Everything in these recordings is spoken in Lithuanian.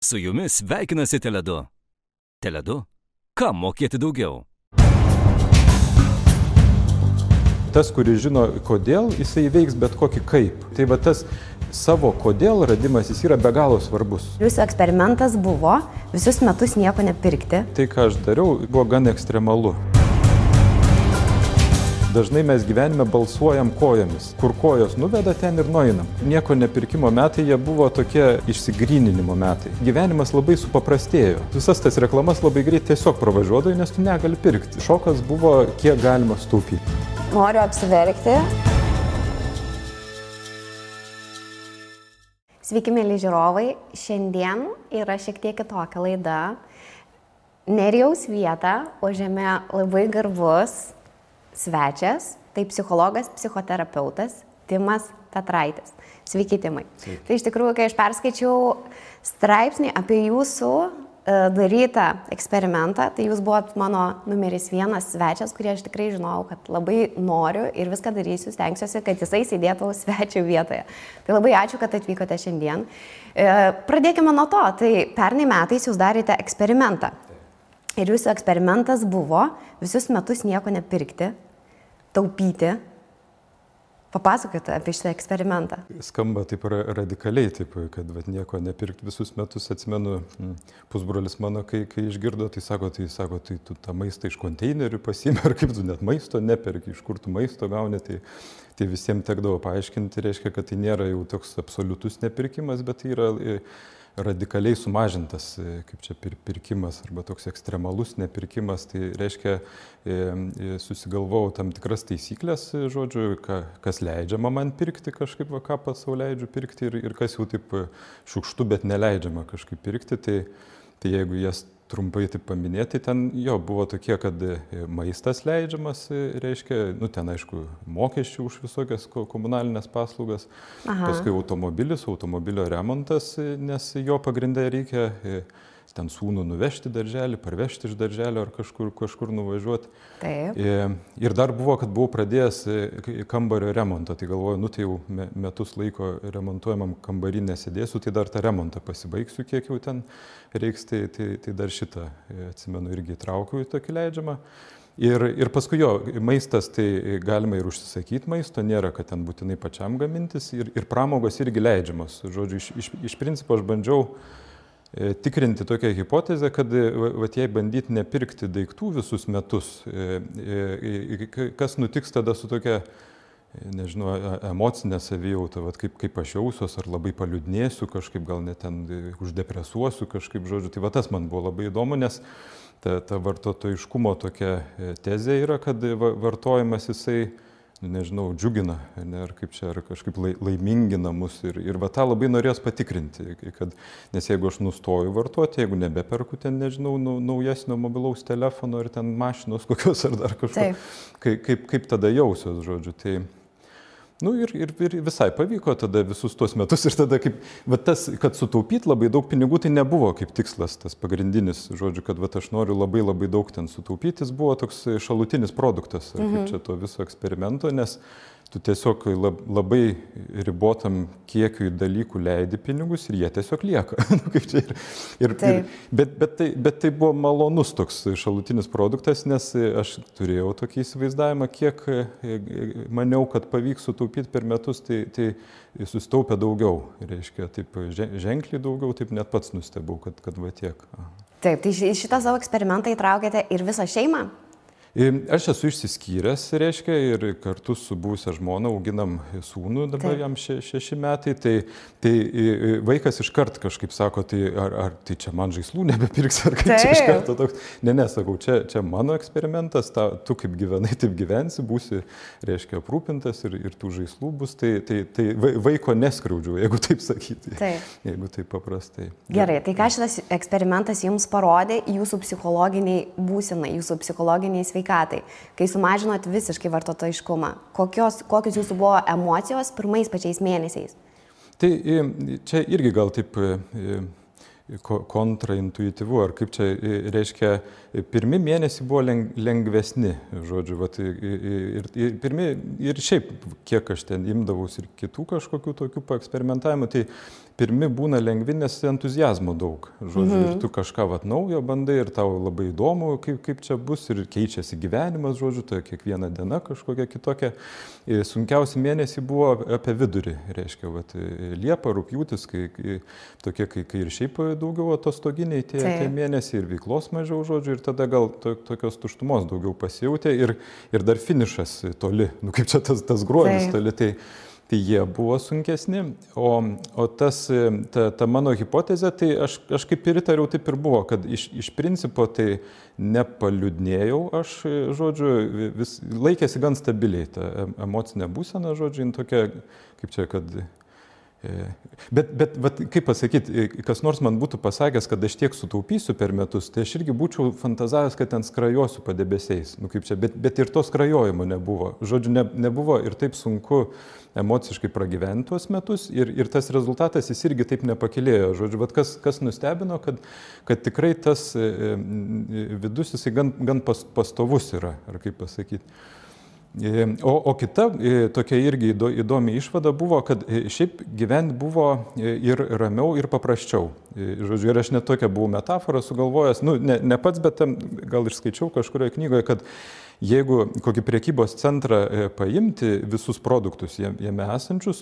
Su jumis sveikinasi Tele2. Tele2. Kam mokėti daugiau? Tas, kuris žino kodėl, jisai veiks bet kokį kaip. Tai va tas savo kodėl radimas, jis yra be galo svarbus. Jūsų eksperimentas buvo visus metus nieko nepirkti. Tai, ką aš dariau, buvo gan ekstremalu. Dažnai mes gyvenime balsuojam kojomis. Kur kojos nuveda, ten ir nueinam. Nieko nepirkimo metai, jie buvo tokie išsigryninimo metai. Gyvenimas labai supaprastėjo. Visas tas reklamas labai greit tiesiog pravažiuodavo, nes tu negali pirkti. Šokas buvo, kiek galima sutaupyti. Noriu apsiverkti. Sveiki, mėly žiūrovai. Šiandien yra šiek tiek kitokia laida. Nerijaus vietą užėmė labai garbus svečias, tai psichologas, psichoterapeutas Timas Petraitis. Sveiki, Timai. Sveiki. Tai iš tikrųjų, kai aš perskaičiau straipsnį apie jūsų darytą eksperimentą, tai jūs buvot mano numeris 1 svečias, kurį aš tikrai žinojau, kad labai noriu ir viską darysiu, stengsiuosi, kad jisai sėdėtų svečio vietoje. Tai labai ačiū, kad atvykote šiandien. Pradėkime nuo to. Tai pernai metais jūs darėte eksperimentą. Ir jūsų eksperimentas buvo visus metus nieko nepirkti, taupyti. Papasakokite apie šitą eksperimentą. Skamba taip radikaliai, taip, kad nieko nepirkti visus metus. Atsimenu, pusbrolis mano, kai išgirdo, tai sako, tai tu tą maistą iš konteinerių pasiimi, ar kaip tu net maisto neperki, iš kur tu maisto gauni, tai visiems tekdavo paaiškinti, reiškia, kad tai nėra jau toks absoliutus nepirkimas, bet tai yra radikaliai sumažintas, kaip čia pirkimas arba toks ekstremalus nepirkimas, tai reiškia susigalvojau tam tikras taisyklės, žodžiu, kas leidžiama man pirkti kažkaip, ką pats sau leidžiu pirkti ir kas jau taip šiukštu, bet neleidžiama kažkaip pirkti, tai jeigu jas trumpai taip paminėti, ten jo buvo tokie, kad maistas leidžiamas, reiškia, ten aišku, mokesčių už visokias komunalinės paslaugas, paskui automobilio remontas, nes jo pagrindai reikia ten sūnų nuvežti darželį, parvežti iš darželio ar kažkur nuvažiuoti. Taip. Ir dar buvo, kad buvau pradėjęs kambario remontą, tai galvoju, tai jau metus laiko remontuojamam kambarį nesėdėsiu, tai dar tą remontą pasibaigsiu, kiek jau ten reiks, tai dar šitą, atsimenu, irgi įtraukiau į tokį leidžiamą. Ir paskui maistas, tai galima ir užsisakyti maisto, nėra, kad ten būtinai pačiam gamintis, ir pramogos irgi leidžiamos. Žodžiu, iš principo aš bandžiau tikrinti tokią hipotezę, kad jei bandyti nepirkti daiktų visus metus, kas nutiks tada su tokia, nežinau, emocinė savijauta, kaip aš jausiuos, ar labai paliūdnėsiu kažkaip, gal net ten uždepresuosiu kažkaip, žodžiu. Tai tas man buvo labai įdomu, nes ta vartotojiškumo tokia tezė yra, kad vartojimas jisai, nežinau, džiugina, ar kaip čia, ar kažkaip laimingina mus ir tą labai norėjos patikrinti, nes jeigu aš nustoju vartoti, jeigu nebeperku ten, nežinau, naujesnio mobilaus telefono ar ten mašinos kokios ar dar kažko, kaip tada jausiuos, žodžiu, tai ir visai pavyko tada visus tuos metus ir tada kad sutaupyti labai daug pinigų, tai nebuvo kaip tikslas tas pagrindinis, žodžiu, kad aš noriu labai daug ten sutaupyti, jis buvo toks šalutinis produktas, kaip čia to viso eksperimento, nes tu tiesiog labai ribotam kiekiui dalykų leidi pinigus ir jie tiesiog lieka. Bet tai buvo malonus toks šalutinis produktas, nes aš turėjau tokį įsivaizdavimą, kiek maniau, kad pavyks sutaupyti per metus, tai susitaupė daugiau, reiškia, taip ženkliai daugiau, taip net pats nustebau, kad va tiek. Taip, tai šitą savo eksperimentą įtraukėte ir visą šeimą? Aš esu išsiskyręs, reiškia, ir kartu su buvusia žmona auginam sūnų, dabar jam 6 metai, tai vaikas iškart kažkaip sako, ar tai čia man žaislų nebepirks, ar kaip čia iš karto toks. Ne, sakau, čia mano eksperimentas, tu kaip gyvenai, taip gyvensi, būsi, reiškia, aprūpintas ir tų žaislų bus, tai vaiko neskriaudžiu, jeigu taip sakyti, jeigu taip paprastai. Gerai, tai ką šitas eksperimentas jums parodė jūsų psichologiniai būsenai, jūsų psichologiniai sveikatai, kai sumažinot visiškai vartotojiškumą? Kokios jūsų buvo emocijos pirmais pačiais mėnesiais? Tai čia irgi gal taip kontraintuityvu, ar kaip čia reiškia, pirmi mėnesiai buvo lengvesni, žodžiu, ir šiaip, kiek aš ten imdavaus ir kitų kažkokių tokių paeksperimentavimų, tai pirmi būna lengvi, nes entuzijazmo daug. Žodžiu, ir tu kažką naujo bandai ir tau labai įdomu, kaip čia bus ir keičiasi gyvenimas, žodžiu, tai kiekviena diena kažkokia kitokia. Sunkiausi mėnesiai buvo apie vidurį, reiškia, Liepa, rugpjūtis, kai ir šiaip daugiau atostoginiai tie mėnesiai ir veiklos mažiau, žodžiu, ir tada gal tokios tuštumos daugiau pasijautė ir dar finišas toli, kaip čia tas gruodis toli, tai jie buvo sunkesni, o ta mano hipotezė, tai aš kaip ir įtariau, taip ir buvo, kad iš principo tai nepaliūdnėjau, aš, žodžiu, laikėsi gan stabiliai ta emocinė būsena, žodžiu, tokia, kaip čia, kad... Bet kaip pasakyti, kas nors man būtų pasakęs, kad aš tiek sutaupysiu per metus, tai aš irgi būčiau fantazavęs, kad ten skrajosiu padebesiais. Kaip čia, bet ir to skrajojimo nebuvo. Žodžiu, nebuvo ir taip sunku emociškai pragyventi tuos metus ir tas rezultatas jis irgi taip nepakilėjo. Žodžiu, kas nustebino, kad tikrai tas vidus jisai gan pastovus yra, ar kaip pasakyti. O kita tokia irgi įdomi išvada buvo, kad šiaip gyventi buvo ir ramiau, ir paprasčiau. Žodžiu, ir aš net tokią buvau metaforą sugalvojęs, ne pats, bet gal ir skaičiau kažkurioje knygoje, kad jeigu kokį prekybos centrą paimti visus produktus jame esančius,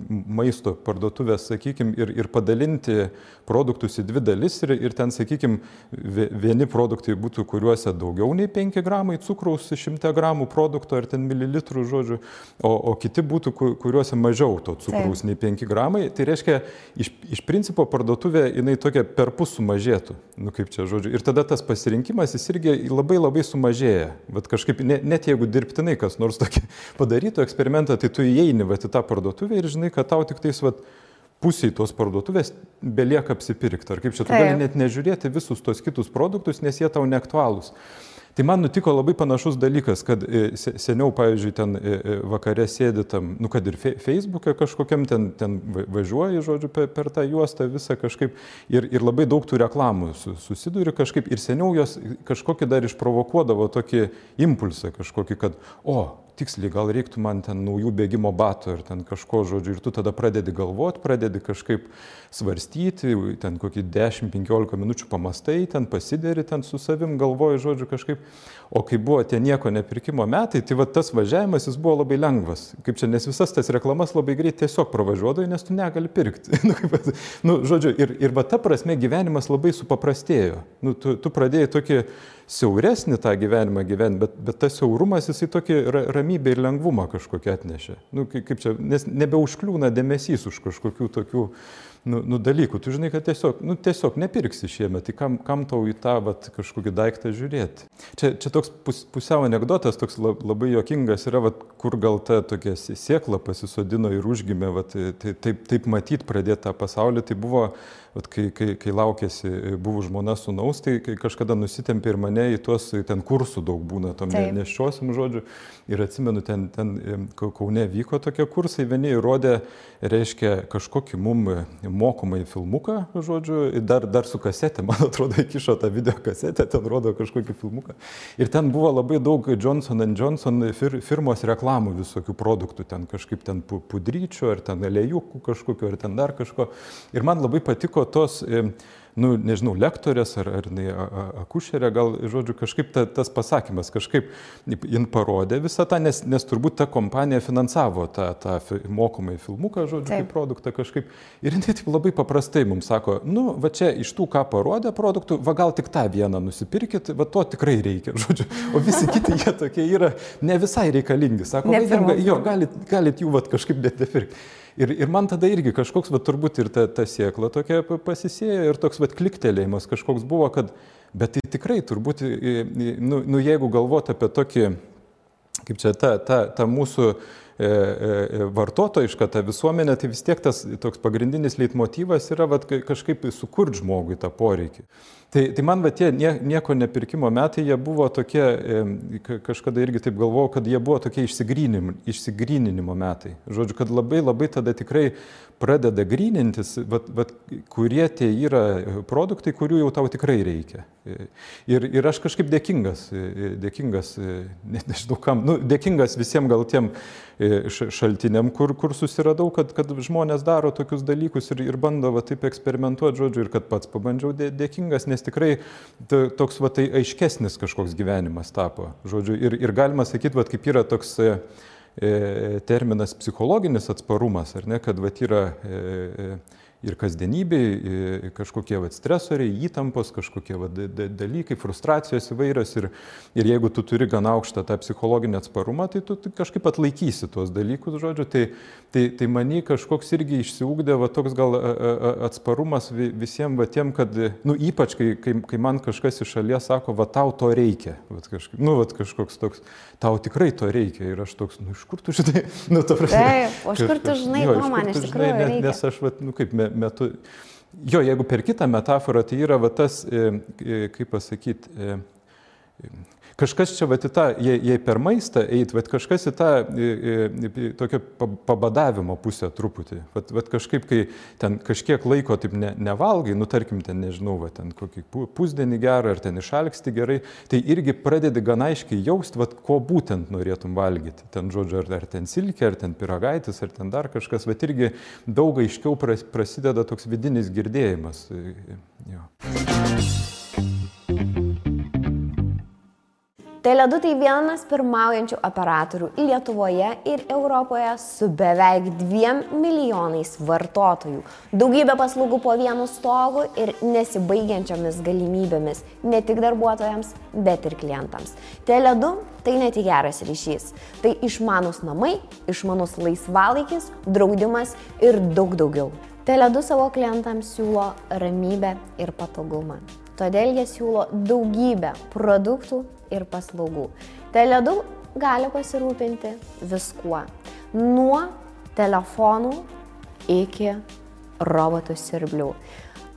maisto parduotuvės, sakykime, ir padalinti produktus į dvi dalis ir ten, sakykime, vieni produktai būtų, kuriuose daugiau nei 5 gramai cukraus 100 gramų produkto ar ten mililitrų, žodžiu, o kiti būtų, kuriuose mažiau to cukraus nei 5 gramai, tai reiškia, iš principo parduotuvė jinai tokia perpus sumažėtų, kaip čia, žodžiu, ir tada tas pasirinkimas jis irgi labai sumažėja, kažkaip net jeigu dirbtinai kas nors tokį padarytų eksperimentą, tai tu įeini į tą parduotuvę ir žinai, kad tau tik tais pusiai tos parduotuvės belieka apsipirkti. Ar kaip čia, tu gali net nežiūrėti visus tos kitus produktus, nes jie tau neaktualūs. Tai man nutiko labai panašus dalykas, kad seniau, pavyzdžiui, ten vakare sėdi tam, kad ir Facebook'e kažkokiam ten važiuoji, žodžiu, per tą juostą visą kažkaip ir labai daug tų reklamų susiduri kažkaip ir seniau jos kažkokį dar išprovokuodavo tokį impulsą kažkokį, kad, tiksliai, gal reiktų man ten naujų bėgimo batų ir ten kažko, žodžiu, ir tu tada pradedi galvoti, pradedi kažkaip svarstyti, ten kokį 10-15 minučių pamastai, ten pasideri, ten su savim galvoji, žodžiu, kažkaip, o kai buvo tie nieko nepirkimo metai, tai tas važiavimas jis buvo labai lengvas, kaip čia, nes visas tas reklamas labai greit tiesiog pravažiuodai, nes tu negali pirkti. Žodžiu, ir ta prasme gyvenimas labai supaprastėjo. Tu pradėjai tokį siauresnį tą gyvenimą gyventi, bet tas siaurumas jisai tokį ramybę ir lengvumą kažkokią atnešė. Kaip čia, nes nebeužkliūna dėmesys už kažkokių tokių dalykų. Tu žinai, kad tiesiog nepirksi šiemet, tai kam tau į tą kažkokį daiktą žiūrėti. Čia toks pusiau anekdotas, toks labai juokingas yra, kur gal ta tokia sėkla pasisodino ir užgimė, taip matyti pradėti tą pasaulį, tai buvo, kai laukėsi, buvo žmona sūnaus, tai kažkada nusitempė ir mane į tuos, ten kursų daug būna, tom neščiosim, žodžiu, ir atsimenu, ten Kaune vyko tokie kursai, vieni įrodė, reiškia, kažkokį mum mokomai filmuką, žodžiu, dar su kasetė, man atrodo, įkišo tą video kasetę, ten rodo kažkokį filmuką. Ir ten buvo labai daug Johnson & Johnson firmos reklamų visokių produktų, ten kažkaip ten pudryčių, ar ten alejukų kažkokiu, ar ten dar kažko. Ir man labai patiko tos, nežinau, lektorės ar akušerė, gal, žodžiu, kažkaip tas pasakymas, kažkaip jin parodė visą tą, nes turbūt ta kompanija finansavo tą mokomai filmuką, žodžiu, kaip produktą kažkaip. Ir jinai taip labai paprastai mums sako, va čia iš tų, ką parodė produktų, va gal tik tą vieną nusipirkit, va to tikrai reikia, žodžiu. O visi kiti jie tokie yra ne visai reikalingi. Sako, galit jų kažkaip net nepirkti. Ir man tada irgi kažkoks, turbūt ir ta sėkla tokia pasisėjo ir toks kliktelėjimas kažkoks buvo, kad, bet tai tikrai turbūt, jeigu galvoti apie tokį, kaip čia, ta mūsų vartotojiška, ta visuomenė, tai vis tiek tas toks pagrindinis leitmotyvas yra kažkaip sukurti žmogui tą poreikį. Tai man tie nieko nepirkimo metai, jie buvo tokie, kažkada irgi taip galvojau, kad jie buvo tokie išsigryninimo metai. Žodžiu, kad labai tada tikrai pradeda grynintis, kurie tie yra produktai, kurių jau tau tikrai reikia. Ir aš kažkaip dėkingas, nežinau kam, dėkingas visiems gal tiem šaltiniam, kur susiradau, kad žmonės daro tokius dalykus ir bando va, taip eksperimentuoti, žodžiu, ir kad pats pabandžiau dėkingas, nes tikrai toks va, tai aiškesnis kažkoks gyvenimas tapo. Žodžiu, ir galima sakyti, va, kaip yra toks terminas psichologinis atsparumas, ar ne, kad va, yra ir kasdienybei kažkokie va, stresoriai, įtampos, kažkokie va, dalykai, frustracijos įvairios ir jeigu tu turi gan aukštą tą psichologinį atsparumą, tai tu kažkaip atlaikysi tuos dalykus, žodžiu, tai manį kažkoks irgi išsiugdė va, toks gal atsparumas visiems va, tiem, kad, nu, ypač kai man kažkas iš šalies sako, va, tau to reikia, va, kažkoks toks, tau tikrai to reikia ir aš toks, nu, iš kur tu žinai, nu, ta prasme. Taip, o iš kur tu žinai, ko man iš tikrųjų reikia? Nes aš, va, nu, kaip metu, jo, jeigu per kitą metaforą, tai yra va, tas, kaip pasakyti, kažkas čia, va, į tą, jei per maistą eit, va, kažkas į tą tokio pabadavimo pusę truputį. Va, kažkaip, kai ten kažkiek laiko taip nevalgai, nu, tarkim, ten, nežinau, va, ten kokį pusdienį gerą, ar ten išalksti gerai, tai irgi pradedi gan aiškiai jausti, va, ko būtent norėtum valgyti. Ten, žodžiu, ar ten silkė, ar ten pyragaitis, ar ten dar kažkas, va, irgi daug aiškiau prasideda toks vidinis girdėjimas. Jo. Tele2 tai vienas pirmaujančių operatorių Lietuvoje ir Europoje su beveik 2 milijonais vartotojų, daugybė paslaugų po vienu stogu ir nesibaigiančiomis galimybėmis ne tik darbuotojams, bet ir klientams. Tele2 tai ne tik geras ryšys, tai išmanūs namai, išmanus laisvalaikis, draudimas ir daug daugiau. Tele2 savo klientams siūlo ramybę ir patogumą. Todėl jie siūlo daugybę produktų ir paslaugų. Tele2 gali pasirūpinti viskuo. Nuo telefonų iki robotų siurblių.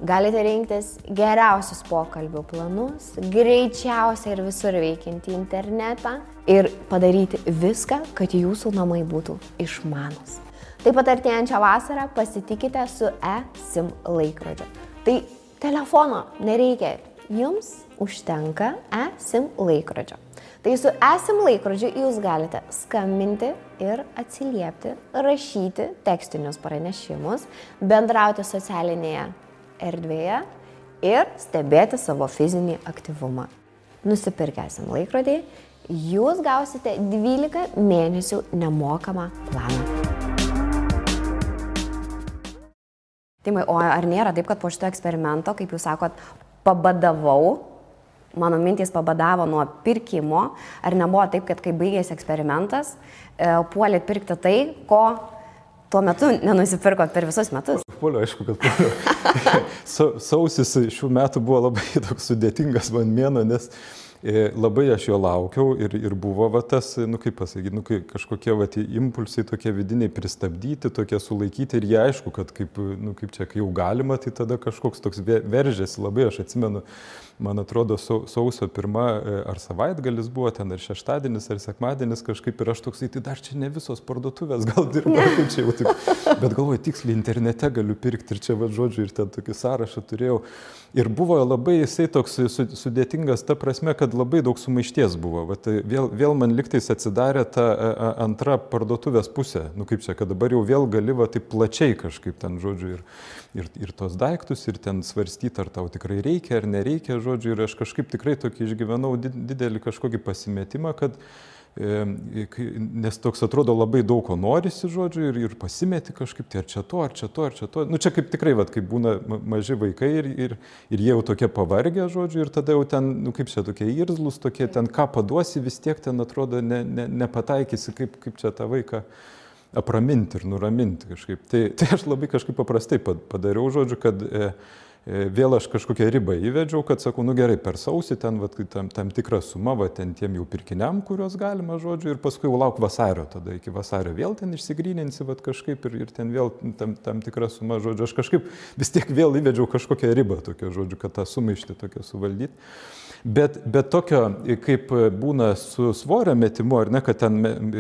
Galite rinktis geriausius pokalbių planus, greičiausiai ir visur veikiantį internetą ir padaryti viską, kad jūsų namai būtų išmanūs. Taip pat artėjančią vasarą pasitikite su eSIM laikrodžiu. Tai telefono nereikia, jums užtenka eSIM laikrodžio. Tai su eSIM laikrodžiu jūs galite skambinti ir atsiliepti, rašyti tekstinius pranešimus, bendrauti socialinėje erdvėje ir stebėti savo fizinį aktyvumą. Nusipirkę eSIM laikrodį, jūs gausite 12 mėnesių nemokamą planą. Timai, o ar nėra taip, kad po šito eksperimento, kaip jūs sakot, pabadavau, mano mintys pabadavo nuo pirkimo, ar nebuvo taip, kad kai baigėsi eksperimentas, puolėt pirkti tai, ko tuo metu nenusipirkot per visus metus? Puoliu, aišku, kad puoliu. Sausis šių metų buvo labai toks sudėtingas man mėnuo, nes labai aš jo laukiau ir buvo va tas, nu kaip pasakyti, nu kažkokie va impulsai tokie vidiniai pristabdyti, tokie sulaikyti ir jie aišku, kad kaip čia, kai jau galima, tai tada kažkoks toks veržėsi labai, aš atsimenu, man atrodo, sausio 1 ar savaitgalis buvo ten, ar šeštadienis, ar sekmadienis kažkaip ir aš toksai, tai dar čia ne visos parduotuvės gal dirba, kaip čia jau tik, bet galvoju, tiksliai internete galiu pirkti ir čia va žodžiu ir ten tokį sąrašą turėjau. Ir buvo labai jisai toks sudėtingas ta prasme, kad labai daug sumaišties buvo. Vat vėl man liktais atsidarė ta antra parduotuvės pusė. Nu kaip čia, kad dabar jau vėl gali va taip plačiai kažkaip ten, žodžiu, ir tos daiktus, ir ten svarstyti, ar tau tikrai reikia, ar nereikia, žodžiu. Ir aš kažkaip tikrai tokį išgyvenau didelį kažkokį pasimetimą, kad nes toks atrodo labai daug ko norisi, žodžiu, ir pasimeti kažkaip, tai ar čia to, ar čia to, ar čia to. Nu čia kaip tikrai, vat, kaip būna maži vaikai ir jie jau tokie pavargę, žodžiu, ir tada jau ten, nu kaip čia tokie irzlus, tokie ten ką paduosi, vis tiek ten atrodo nepataikysi, kaip čia tą vaiką apraminti ir nuraminti kažkaip. Tai aš labai kažkaip paprastai padariau, žodžiu, kad vėl aš kažkokią ribą įvedžiau, kad sakau, nu gerai, per sausį ten vat, tam tikrą sumą, va, ten tiem jau pirkiniam, kurios galima, žodžiu, ir paskui jau lauk vasario, tada iki vasario vėl ten išsigryninsi, vat, kažkaip ir ten vėl tam tikrą sumą, žodžiu, aš kažkaip vis tiek vėl įvedžiau kažkokią ribą, tokią, žodžiu, kad tą sumaištį tokią suvaldyti. Bet tokio, kaip būna su svorio metimu, ar ne, kad ten,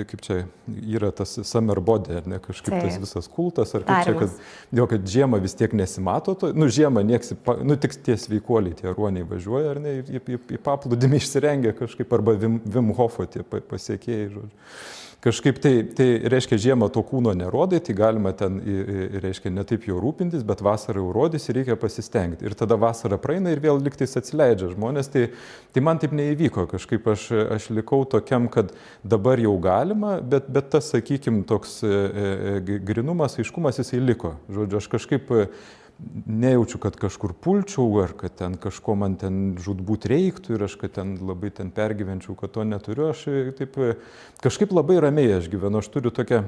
kaip čia yra tas summer body, ar ne, kažkaip tas visas kultas, ar kaip čia, kad žiemą vis tiek nesimato to, nu žiemą nieks, nu tik tie sveikuoliai, tie ruoniai važiuoja, ar ne, į paplūdimį išsirengia kažkaip, arba Wim Hofo tie pasiekėjai, žodžiu. kažkaip tai reiškia žiemą to kūno nerodai, tai galima ten, reiškia, ne taip jau rūpintis, bet vasarą jau rodys ir reikia pasistengti. Ir tada vasara praeina ir vėl liktais atsileidžia žmonės. Tai man taip neįvyko, kažkaip aš likau tokiam, kad dabar jau galima, bet tas, sakykime, toks grinumas, aiškumas jisai liko. Žodžiu, aš kažkaip nejaučiu, kad kažkur pulčiau, ar kad ten kažko man ten žudbūt reiktų ir aš kad ten labai ten pergyvenčiau, kad to neturiu. Aš taip kažkaip labai ramiai aš gyvenu. Aš turiu tokią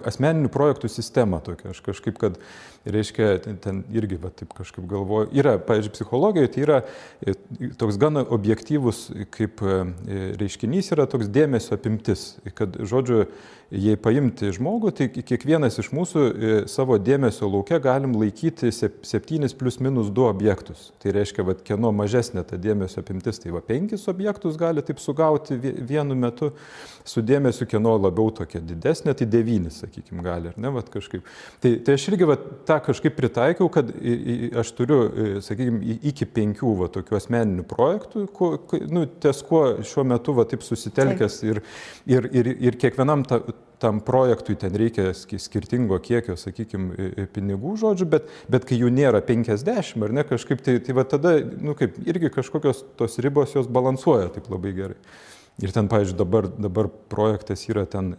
asmeninių projektų sistemą tokia. Aš kažkaip, kad, reiškia, ten irgi, va, taip kažkaip galvoju, yra, pavyzdžiui, psichologijoje tai yra toks gana objektyvus, kaip reiškinys yra toks dėmesio apimtis, kad, žodžiu, jei paimti žmogų, tai kiekvienas iš mūsų savo dėmesio lauke galim laikyti 7 + -2 objektus. Tai reiškia, va, kieno mažesnė ta dėmesio apimtis, tai va 5 objektus gali taip sugauti vienu metu su dėmesiu, kieno labiau tokia didesnė, tai 9, sakykime, gali, ar ne, va, kažkaip. Tai aš irgi va, tą kažkaip pritaikiau, kad aš turiu, sakykime, iki 5 va, tokių asmeninių projektų, ties kuo šiuo metu va, taip susitelkęs ir kiekvienam tam projektui ten reikia skirtingo kiekio, sakykime, pinigų, žodžiu, bet kai jų nėra 50, ar ne, kažkaip, tai va tada, kaip irgi kažkokios tos ribos jos balansuoja taip labai gerai. Ir ten, pavyzdžiui, dabar projektas yra ten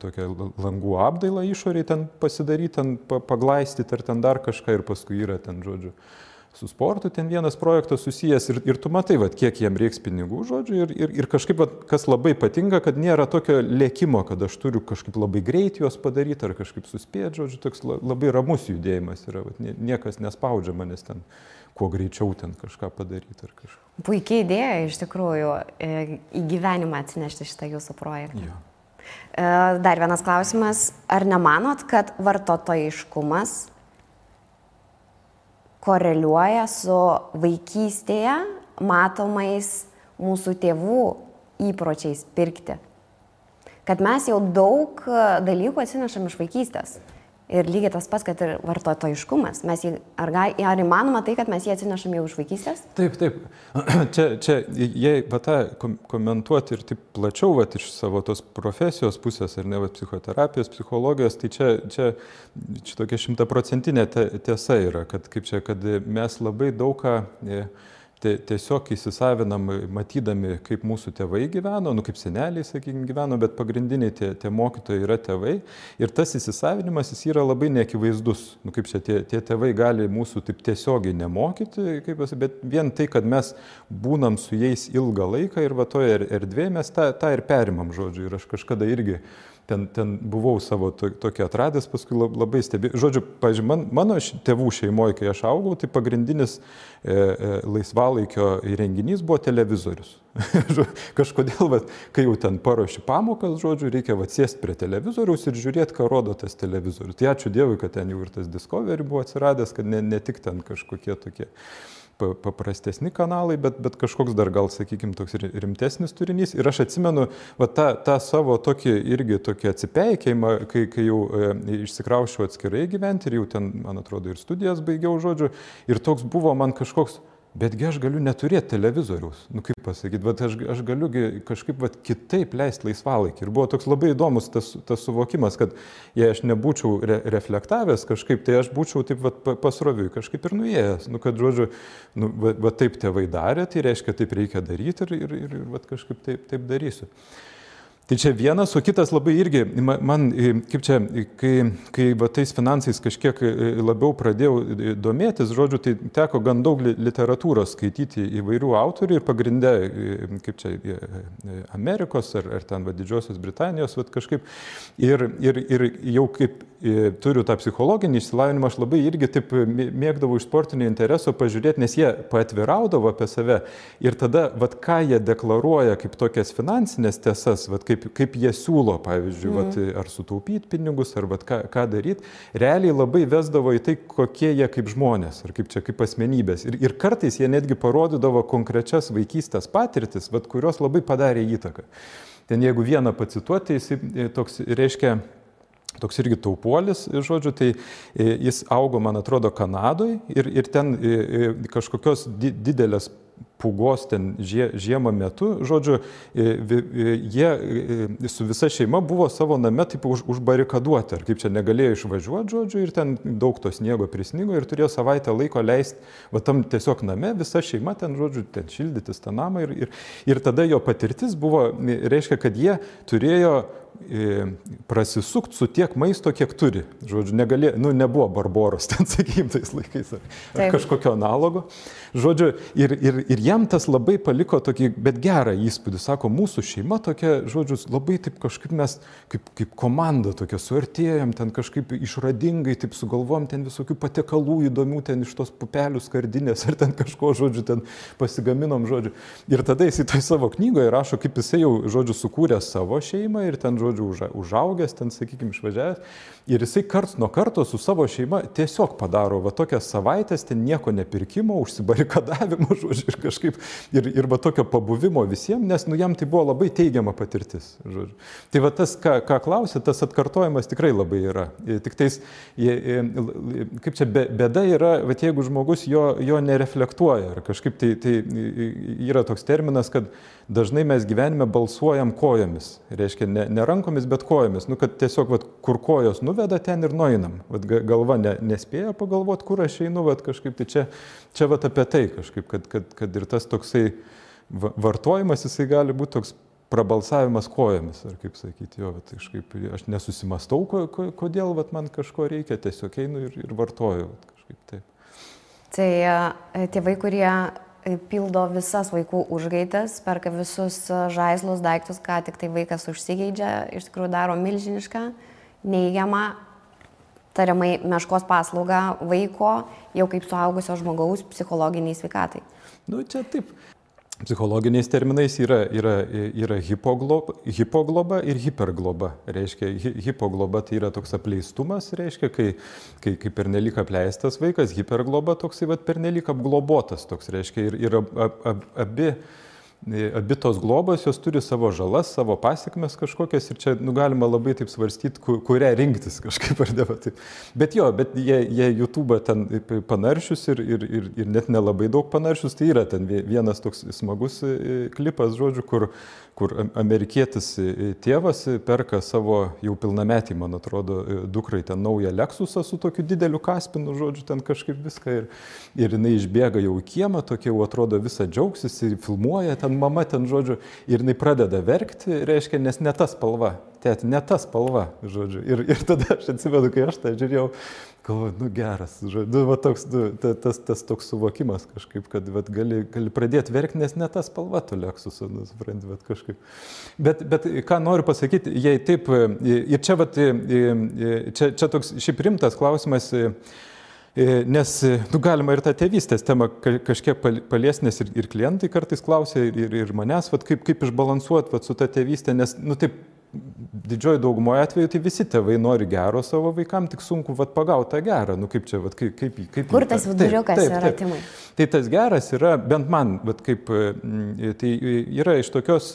tokia langų apdaila išoriai ten pasidaryti, ten paglaistyti ar ten dar kažką ir paskui yra ten, žodžiu, su sportu ten vienas projektas susijęs ir tu matai, va, kiek jiem reiks pinigų, žodžiu, ir kažkaip, va, kas labai patinka, kad nėra tokio lėkimo, kad aš turiu kažkaip labai greit juos padaryti ar kažkaip suspėti, žodžiu, toks labai ramus judėjimas yra, va, niekas nespaudžia manęs ten kuo greičiau ten kažką padaryti ar kažką. Puikiai idėja iš tikrųjų į gyvenimą atsinešti šitą jūsų projektą. Jo. Dar vienas klausimas, ar nemanot, kad vartotojiškumas koreliuoja su vaikystėje matomais mūsų tėvų įpročiais pirkti? Kad mes jau daug dalykų atsinešam iš vaikystės. Ir lygiai tas pats, kad ir vartotojiškumas. Ar įmanoma tai, kad mes jį atsinešam jau iš vaikystės? Taip. Čia jei va tą komentuoti ir taip plačiau va, iš savo tos profesijos pusės, ar ne, va, psichoterapijos, psichologijos, tai čia tokia 100% tiesa yra, kad, kad mes labai daugą tiesiog įsisavinam, matydami, kaip mūsų tėvai gyveno, kaip seneliai, sakykime, gyveno, bet pagrindiniai tie mokytojai yra tėvai. Ir tas įsisavinimas jis yra labai neakivaizdus. Kaip čia tie tėvai gali mūsų taip tiesiogiai nemokyti, bet vien tai, kad mes būnam su jais ilgą laiką ir va toje erdvėje mes tą ir perimam, žodžiu. Ir aš kažkada irgi ten buvau savo tokį atradęs, paskui labai stebėjau. Žodžiu, pavyzdžiui, mano tėvų šeimoje, kai aš augau, tai pagrindinis laisvalaikio įrenginys buvo televizorius. Kažkodėl, kai jau ten paruoši pamokas, žodžiu, reikia sėsti prie televizoriaus ir žiūrėti, ką rodo tas televizorius. Tai ačiū Dievui, kad ten jau ir tas Discovery buvo atsiradęs, kad ne tik ten kažkokie tokie paprastesni kanalai, bet kažkoks dar gal, sakykime, toks rimtesnis turinys. Ir aš atsimenu tą savo tokį atsipeikėjimą, kai jau išsikraušiau atskirai gyventi ir jau ten, man atrodo, ir studijas baigiau, žodžiu. Ir toks buvo man kažkoks, betgi aš galiu neturėti televizoriaus. Kaip pasakyti, bet aš galiu kažkaip kitaip leisti laisvalaikį. Ir buvo toks labai įdomus tas suvokimas, kad jei aš nebūčiau reflektavęs kažkaip, tai aš būčiau taip pasroviui kažkaip ir nuėjęs. Kad, žodžiu, taip tėvai darė, tai reiškia, taip reikia daryti ir kažkaip taip darysiu. Tai čia vienas, o kitas labai irgi, man, kaip čia, kai tais finansais kažkiek labiau pradėjau domėtis, žodžiu, tai teko gan daug literatūros skaityti įvairių autorių ir pagrinde, kaip čia, Amerikos ar ten Didžiosios Britanijos, kažkaip, ir jau kaip turiu tą psichologinį išsilavinimą, aš labai irgi taip mėgdavau iš sportinio intereso pažiūrėti, nes jie paatviraudavo apie save ir tada, ką jie deklaruoja kaip tokias finansinės tiesas, kaip jie siūlo, pavyzdžiui, ar sutaupyti pinigus, ar ką daryti, realiai labai vesdavo į tai, kokie jie kaip žmonės, ar kaip asmenybės. Ir kartais jie netgi parodydavo konkrečias vaikystės patirtis, kurios labai padarė įtaką. Ten jeigu vieną pacituoti, jis toks reiškia, toks irgi taupuolis, žodžiu, tai jis augo, man atrodo, Kanadoje ir ten kažkokios didelės pūgos ten žiemą metu, žodžiu, jie su visa šeima buvo savo name taip užbarikaduoti, ar kaip čia negalėjo išvažiuoti, žodžiu, ir ten daug to sniego prisnigo ir turėjo savaitę laiko leisti, va tam tiesiog name, visa šeima ten, žodžiu, ten šildytis tą namą ir tada jo patirtis buvo, reiškia, kad jie turėjo prasisukti su tiek maisto, kiek turi. Žodžiu, nebuvo Barboros ten, sakykim, tais laikais ar kažkokio analogo. Žodžiu, ir jam tas labai paliko tokį, bet gerą įspūdį. Sako, mūsų šeima tokia, žodžiu, labai taip kažkaip mes, kaip komanda tokia, suartėjom, ten kažkaip išradingai, taip sugalvom ten visokių patiekalų įdomių, ten iš tos pupelių skardinės, ar ten kažko, žodžiu, ten pasigaminom, žodžiu. Ir tada jis į tai savo knygoje rašo, kaip jisai jau, žodžiu, sukūrė savo šeimą ir ten, žodžiu, užaugęs, ten, sakykime, išvažiavęs. Ir jisai karts nuo karto su savo šeima tiesiog padaro va tokias savaitės, ten nieko nepirkimo, užsibarikadavimo, žodžiu, ir kažkaip, ir va tokio pabuvimo visiems, nes jam tai buvo labai teigiama patirtis, žodžiu. Tai va tas, ką klausė, tas atkartojimas tikrai labai yra. Tik tais, kaip čia, bėda yra, va jeigu žmogus jo nereflektuoja, ar kažkaip tai yra toks terminas, kad dažnai mes gyvenime balsuojam kojomis, reiškia ne rankomis, bet kojomis, kad tiesiog kur kojos nuveda, ten ir nueinam. Galva nespėja pagalvoti, kur aš einu, kažkaip tai čia apie tai kažkaip, kad ir tas toksai vartojimas, jisai gali būti toks prabalsavimas kojomis, ar kaip sakyti, kažkaip aš nesusimastau, kodėl man kažko reikia, tiesiog einu ir vartoju, kažkaip taip. Tai tėvai, kurie pildo visas vaikų užgaidas, perka visus žaislus, daiktus, ką tik tai vaikas užsigeidžia, iš tikrųjų daro milžinišką, neigiamą, tariamai meškos paslaugą vaiko, jau kaip suaugusio žmogaus psichologiniai sveikatai. Čia taip. Psichologiniais terminais yra hipogloba ir hipergloba. Reiškia, hipogloba tai yra toks apleistumas, reiškia, kai pernelyg apleistas vaikas, hipergloba toksai pernelyg apglobotas toks, reiškia, ir abi tos globos, jos turi savo žalas, savo pasiekmes kažkokias ir čia galima labai taip svarstyti, kurią rinktis kažkaip ar ne. Bet jie YouTube ten panaršius ir net nelabai daug panaršius, tai yra ten vienas toks smagus klipas, žodžiu, kur amerikietis tėvas perka savo jau pilnametį, man atrodo, dukrai ten naują Lexusą su tokiu dideliu kaspinu, žodžiu, ten kažkaip viską ir jinai išbėga jau į kiemą, tokia jau atrodo visą džiaugsis ir filmuoja ten mama ten, žodžiu, ir jinai pradeda verkti, reiškia, nes ne ta spalva, tėti, ne ta spalva, žodžiu. Ir tada aš atsimenu, kai aš tą žiūrėjau, galvoju, geras, žodžiu, tas toks suvokimas kažkaip, kad gali pradėti verkti, nes ne ta spalva to Lexuso, supranti, kažkaip. Bet ką noriu pasakyti, jei taip, ir čia toks šiaip rimtas klausimas, nes galima ir tą tėvystės temą kažkiek paliesti, nes ir klientai kartais klausia ir manęs, kaip išbalansuoti su ta tėvystė, nes taip didžioji daugumoje atveju tai visi tėvai nori gero savo vaikam, tik sunku pagauti tą gerą, kaip čia, kaip kur tas viduriukas yra, Timai? Tai tas geras yra, bent man, tai yra iš tokios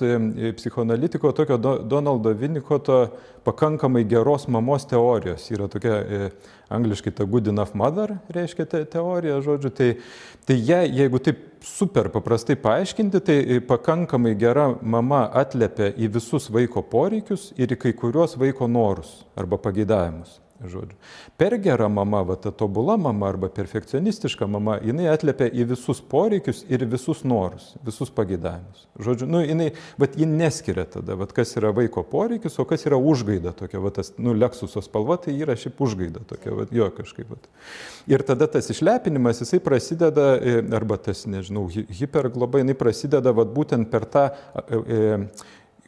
psichoanalitiko, tokio Donaldo Winnicotto pakankamai geros mamos teorijos. Yra tokia angliškai ta good enough mother, reiškia teorija, žodžiu. Tai jeigu taip super paprastai paaiškinti, tai pakankamai gera mama atliepia į visus vaiko poreikius ir į kai kuriuos vaiko norus arba pageidavimus. Žodžiu. Per gera mama, ta tobula mama arba perfekcionistiška mama, jinai atliepia į visus poreikius ir visus norus, visus pageidavimus. Žodžiu, ji neskiria tada, kas yra vaiko poreikis, o kas yra užgaida tokia, tas, Lexuso spalva, tai yra šiaip užgaida tokia, jo kažkaip. Ir tada tas išlepinimas, jisai prasideda, arba tas, nežinau, hipergloba, jinai prasideda būtent per tą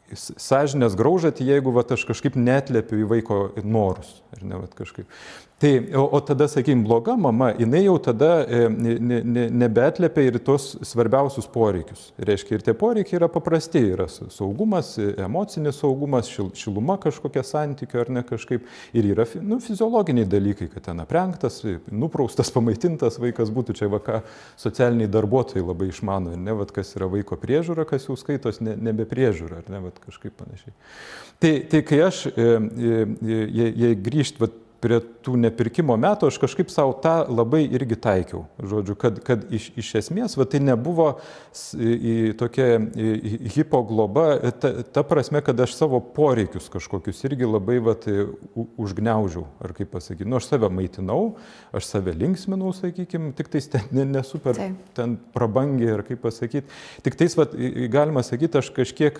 sąžinės graužatį, jeigu aš kažkaip neatliepiu į vaiko norus. Ar ne, kažkaip. Tai, o tada, sakykime, bloga mama, jinai jau tada nebeatliepia ir tos svarbiausius poreikius. Reiškia, ir tie poreikiai yra paprasti, yra saugumas, emocinis saugumas, šiluma kažkokia santykių ar ne kažkaip. Ir yra fiziologiniai dalykai, kad ten aprengtas, nupraustas, pamaitintas vaikas būtų. Čia ką socialiniai darbuotojai labai išmano, ne, kas yra vaiko priežiūra, kas jau skaitos nebe priežiūra, ar ne, kažkaip panašiai. Tai kai aš, jei grįžt, prie tų nepirkimo metų aš kažkaip savo tą labai irgi taikiau. Žodžiu, kad iš esmės tai nebuvo tokia hipogloba, ta prasme, kad aš savo poreikius kažkokius irgi labai užgniaužiau, ar kaip pasakyti. Nu, aš save maitinau, aš save linksminau, sakykime, tik tais ten nesuper ten prabangiai, ar kaip pasakyti. Tik tais, galima sakyti, aš kažkiek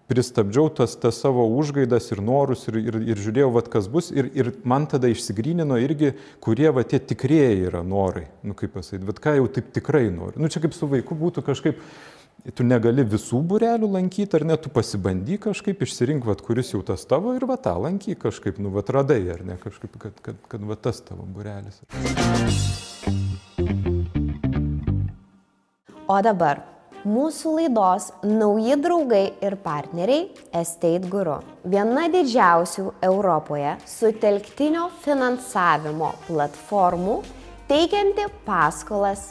pristabdžiau tas savo užgaidas ir norus ir žiūrėjau, kas bus. Ir man tada išsigrynino irgi, kurie tie tikrieji yra norai. Nu, kaip pasakyti, ką jau taip tikrai nori. Nu, čia kaip su vaiku būtų kažkaip, tu negali visų būrelių lankyti, ar ne, tu pasibandyk kažkaip, išsirink, kuris jau tas tavo ir tą lankyk kažkaip, nu, radai, ar ne, kažkaip, kad tas tavo būrelis. O dabar mūsų laidos nauji draugai ir partneriai Estate Guru. Viena didžiausių Europoje sutelktinio finansavimo platformų teikianti paskolas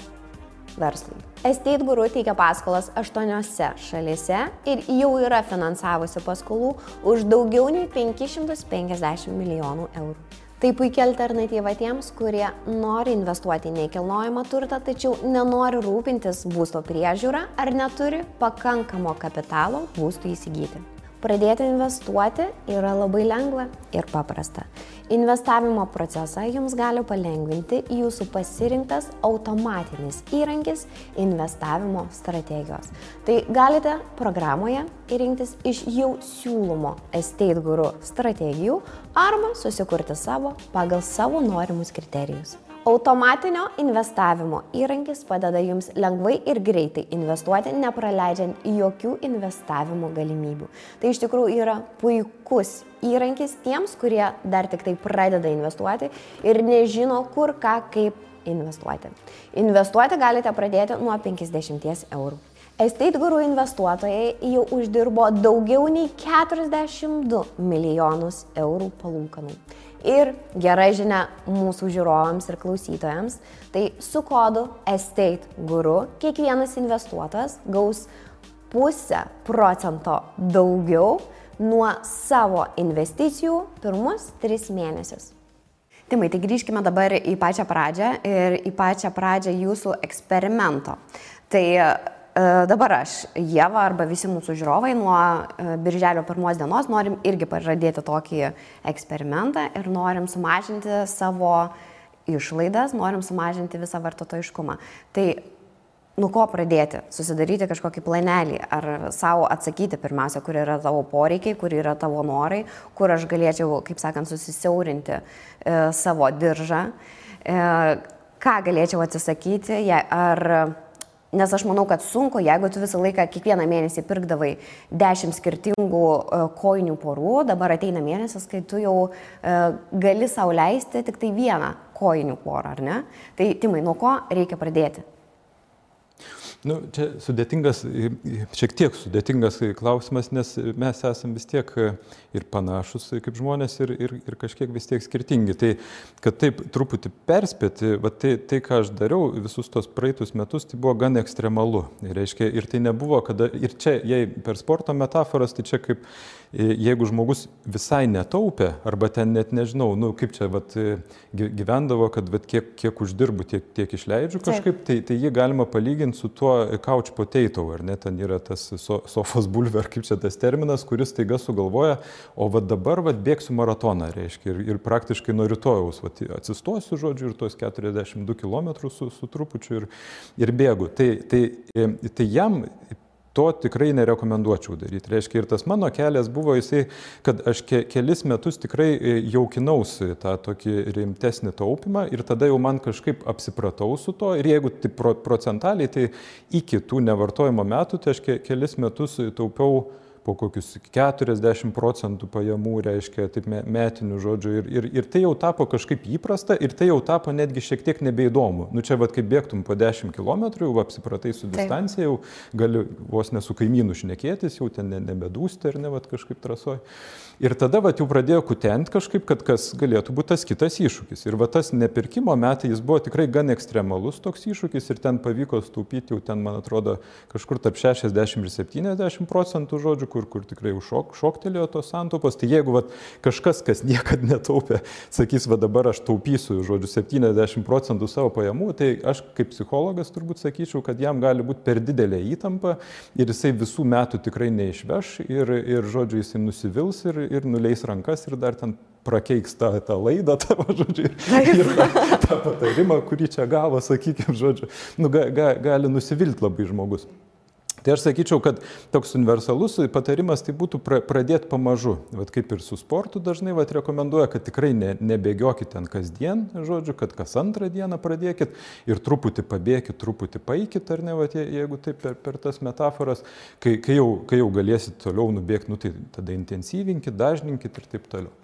verslui. Estate Guru teikia paskolas 8 šalyse ir jau yra finansavusi paskolų už daugiau nei 550 milijonų eurų. Tai puikia alternatyva tiems, kurie nori investuoti į nekilnojamą turtą, tačiau nenori rūpintis būsto priežiūra ar neturi pakankamo kapitalo būstui įsigyti. Pradėti investuoti yra labai lengva ir paprasta. Investavimo procesą jums gali palengvinti jūsų pasirinktas automatinis įrankis investavimo strategijos. Tai galite programoje rinktis iš jau siūlomo Estate Guru strategijų arba susikurti savo pagal savo norimus kriterijus. Automatinio investavimo įrankis padeda jums lengvai ir greitai investuoti, nepraleidžiant jokių investavimo galimybių. Tai iš tikrųjų yra puikus įrankis tiems, kurie dar tik tai pradeda investuoti ir nežino kur, ką, kaip investuoti. Investuoti galite pradėti nuo 50 eurų. Estate Guru investuotojai jau uždirbo daugiau nei 42 milijonus eurų palūkanų. Ir gera žinia mūsų žiūrovams ir klausytojams, tai su kodu Estate Guru kiekvienas investuotojas gaus 0,5% daugiau nuo savo investicijų pirmus 3 mėnesius. Timai, tai grįžkime dabar į pačią pradžią ir į pačią pradžią jūsų eksperimento. Tai dabar aš, Ieva arba visi mūsų žiūrovai nuo birželio 1 dienos norim irgi pradėti tokį eksperimentą ir norim sumažinti savo išlaidas, norim sumažinti visą vartotojiškumą. Tai nuo ko pradėti? Susidaryti kažkokį planelį ar savo atsakyti pirmiausia, kur yra tavo poreikiai, kur yra tavo norai, kur aš galėčiau, kaip sakant, susisiaurinti savo diržą, ką galėčiau atsisakyti, nes aš manau, kad sunku, jeigu tu visą laiką kiekvieną mėnesį pirkdavai 10 skirtingų kojinių porų, dabar ateina mėnesis, kai tu jau gali sau leisti tik tai vieną kojinių porą, ar ne? Tai Timai, nuo ko reikia pradėti? Nu, čia šiek tiek sudėtingas klausimas, nes mes esame vis tiek ir panašus kaip žmonės ir kažkiek vis tiek skirtingi. Tai, kad taip truputį perspėti, tai ką aš dariau visus tos praeitus metus, tai buvo gan ekstremalu. Reiškia, ir tai nebuvo, ir čia, jei per sporto metaforas, tai čia kaip jeigu žmogus visai netaupė, arba ten net nežinau, nu kaip čia gyvendavo, kad kiek uždirbu, tiek išleidžiu kažkaip, tai jį galima palyginti su tuo couch potato, ar ne, ten yra tas sofos bulvė, ar kaip čia tas terminas, kuris taiga sugalvoja, o dabar bėgsiu maratoną, reiškia, ir praktiškai nuo rytojaus atsistosiu, žodžiu, ir tuos 42 km su trupučiu ir bėgu. Tai jam to tikrai nerekomenduočiau daryti. Reiškia, ir tas mano kelias buvo jisai, kad aš kelis metus tikrai jaukinausi tą tokį rimtesnį taupimą ir tada jau man kažkaip apsipratau su to ir jeigu tai procentaliai, tai iki tų nevartojimo metų, tai aš kelis metus taupiau po kokius 40% pajamų, reiškia, taip metinių žodžių. Ir tai jau tapo kažkaip įprasta ir tai jau tapo netgi šiek tiek nebeįdomu. Nu čia kaip bėgtum po 10 km, jau apsipratai su distancija, jau gali vos ne su kaimynu šnekėtis, jau ten nebedūsti ar ne, kažkaip trasoj. Ir tada jau pradėjo kutenti kažkaip, kad kas galėtų būti tas kitas iššūkis. Ir tas nepirkimo metai, jis buvo tikrai gan ekstremalus toks iššūkis ir ten pavyko staupyti jau ten, man atrodo, kažkur tarp 60 ir 70%, žodžiu, kažkur, kur tikrai šoktelėjo tos santaupos. Tai jeigu kažkas, kas niekada netaupė, sakys, dabar aš taupysiu, žodžiu, 70% savo pajamų, tai aš kaip psichologas turbūt sakyčiau, kad jam gali būti per didelė įtampa ir jisai visų metų tikrai neišveš ir žodžiu, jisai nusivils ir nuleis rankas ir dar ten prakeiks tą laidą tavo, žodžiu, ir tą patarimą, kurį čia gavo, sakykime, žodžiu, gali nusivilti labai žmogus. Tai aš sakyčiau, kad toks universalus patarimas tai būtų pradėti pamažu. Vat kaip ir su sportu dažnai rekomenduoja, kad tikrai nebėgiokit ten kasdien, žodžiu, kad kas antrą dieną pradėkit ir truputį pabėkit, truputį paikit, ar ne, jeigu taip per tas metaforas, kai jau galėsit toliau nubėgti, tai tada intensyvinkit, dažninkit ir taip toliau.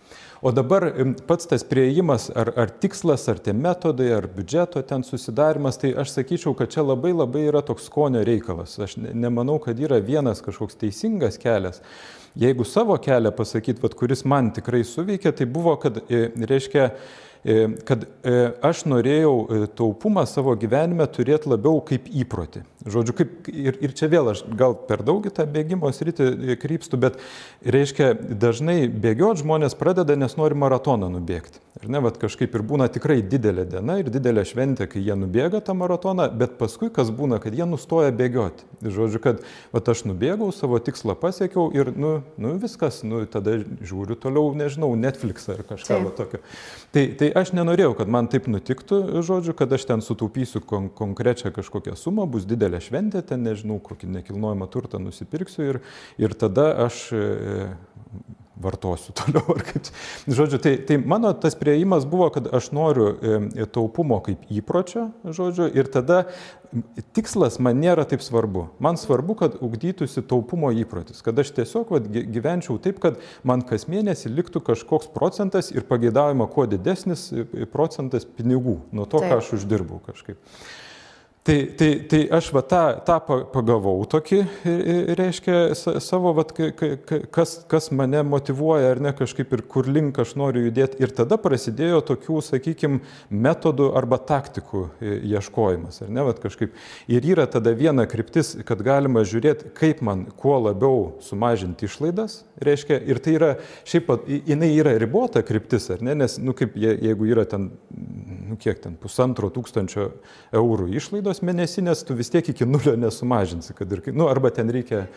O dabar pats tas priėjimas, ar tikslas, ar tie metodai, ar biudžeto ten susidarimas, tai aš sakyčiau, kad čia labai yra toks skonio reikalas. Aš nemanau, kad yra vienas kažkoks teisingas kelias. Jeigu savo kelią pasakyti, kuris man tikrai suveikė, tai buvo, kad aš norėjau taupumą savo gyvenime turėti labiau kaip įprotį. Žodžiu, ir čia vėl aš gal per daug į tą bėgimo sritį krypstu, bet reiškia, dažnai bėgioti žmonės pradeda, nes nori maratoną nubėgti. Ir ne, kažkaip ir būna tikrai didelė diena ir didelė šventė, kai jie nubėga tą maratoną, bet paskui kas būna, kad jie nustoja bėgioti. Žodžiu, kad aš nubėgau, savo tikslą pasiekiau ir viskas, tada žiūriu toliau, nežinau, Netflixą ar kažką tokio. Tai aš nenorėjau, kad man taip nutiktų, žodžiu, kad aš ten sutaupysiu konkrečią kažkokią sumą, bus didelė šventė, ten nežinau, kokį nekilnojamą turtą nusipirksiu ir tada aš vartosiu toliau. Žodžiu, tai mano tas priėjimas buvo, kad aš noriu taupumo kaip įpročio, žodžiu, ir tada tikslas man nėra taip svarbu. Man svarbu, kad ugdytųsi taupumo įprotis, kad aš tiesiog gyvenčiau taip, kad man kas mėnesį liktų kažkoks procentas ir pageidaujama kuo didesnis procentas pinigų nuo to, ką aš uždirbau kažkaip. Tai aš tą pagavau tokį, reiškia, savo, kas mane motyvuoja ar ne kažkaip ir kur link aš noriu judėti. Ir tada prasidėjo tokių, sakykime, metodų arba taktikų ieškojimas, ar ne, kažkaip. Ir yra tada viena kryptis, kad galima žiūrėti, kaip man kuo labiau sumažinti išlaidas, reiškia, ir tai yra, šiaip, jinai yra ribota kryptis, ar ne, nes, kaip jeigu yra ten, kiek ten, 1500 eurų išlaidos mėnesinės, tu vis tiek iki nulio nesumažinsi, kad ir, arba ten reikia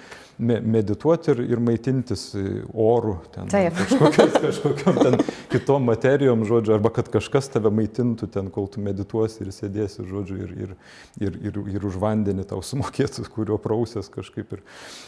medituoti ir maitintis orų, ten kažkokiam ten kitom materijom, žodžiu, arba kad kažkas tave maitintų ten, kol tu medituosi ir sėdėsi, žodžiu, ir už vandenį tau sumokėtų, kurio prausės kažkaip.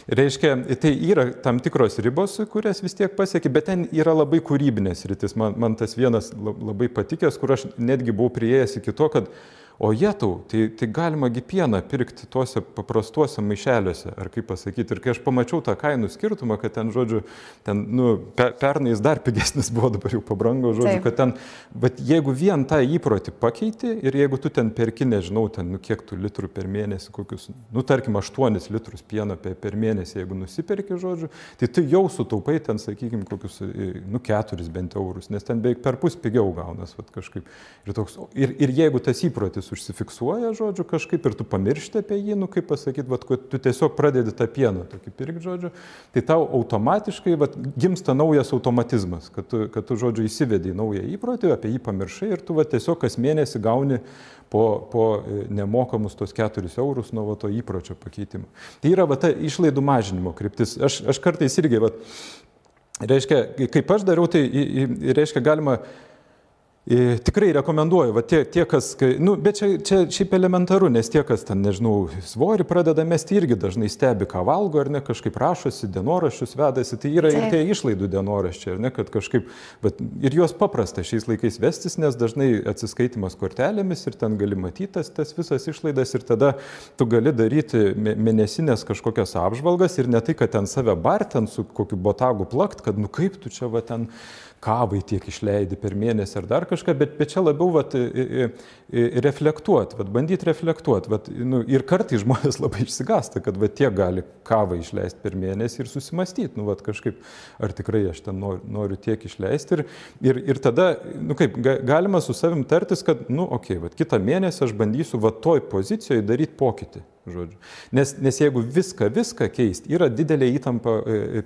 Reiškia, tai yra tam tikros ribos, kurias vis tiek pasieki, bet ten yra labai kūrybinės rytis. Man tas vienas labai patikęs, kur aš netgi buvau priėjęs iki to, kad o jetau, tai galima pieną pirkti tuose paprastuose maišeliuose, ar kaip pasakyti. Ir kai aš pamačiau tą kainų skirtumą, kad ten, žodžiu, pernai jis dar pigesnis buvo, dabar jau pabrango, žodžiu, kad ten, bet jeigu vien tą įprotį pakeiti ir jeigu tu ten perki, nežinau, ten, kiek tų litrų per mėnesį, kokius, tarkim, 8 litrus pieno per mėnesį, jeigu nusiperki, žodžiu, tai tu jau sutaupai ten, sakykime, kokius, 4 bent eurus, nes ten beveik perpus pigiau gaunas, kažkaip. Ir jeigu tas įprotis užsifiksuoja, žodžiu, kažkaip ir tu pamiršti apie jį, kaip pasakyti, kad tu tiesiog pradedi tą pieną tokį pirkti, žodžiu, tai tau automatiškai gimsta naujas automatizmas, kad tu, žodžiu, įsivedi į naują įprotį, apie jį pamiršai ir tu tiesiog kas mėnesį gauni po nemokamus tos 4 eurus nuo to įpročio pakeitimo. Tai yra ta išlaidų mažinimo kryptis. Aš kartais irgi, reiškia, kaip aš dariau, tai reiškia galima tikrai rekomenduoju, tie, kas, bet čia šiaip elementaru, nes tie, kas ten, nežinau, svorį pradeda mesti, irgi dažnai stebi, ką valgo, ar ne, kažkaip rašosi, dienoraščius vedasi, tai yra ir tie išlaidų dienoraščiai, ar ne, kad kažkaip, ir juos paprasta šiais laikais vestis, nes dažnai atsiskaitimas kortelėmis ir ten gali matyti tas visas išlaidas ir tada tu gali daryti mėnesinės kažkokias apžvalgas ir ne tai, kad ten save bartent su kokiu botagu plakt, kad kaip tu čia ten kavai tiek išleidi per mėnesį ar dar kažką, bet čia labiau reflektuoti, bandyti reflektuoti. Ir kartais žmonės labai išsigąsta, kad tiek gali kavą išleisti per mėnesį ir susimastyti, kažkaip, ar tikrai aš ten noriu tiek išleisti. Ir tada, kaip, galima su savim tartis, kad, kitą mėnesį aš bandysiu toj pozicijoje daryti pokytį. žodžiu. Nes jeigu viską keisti, yra didelė įtampa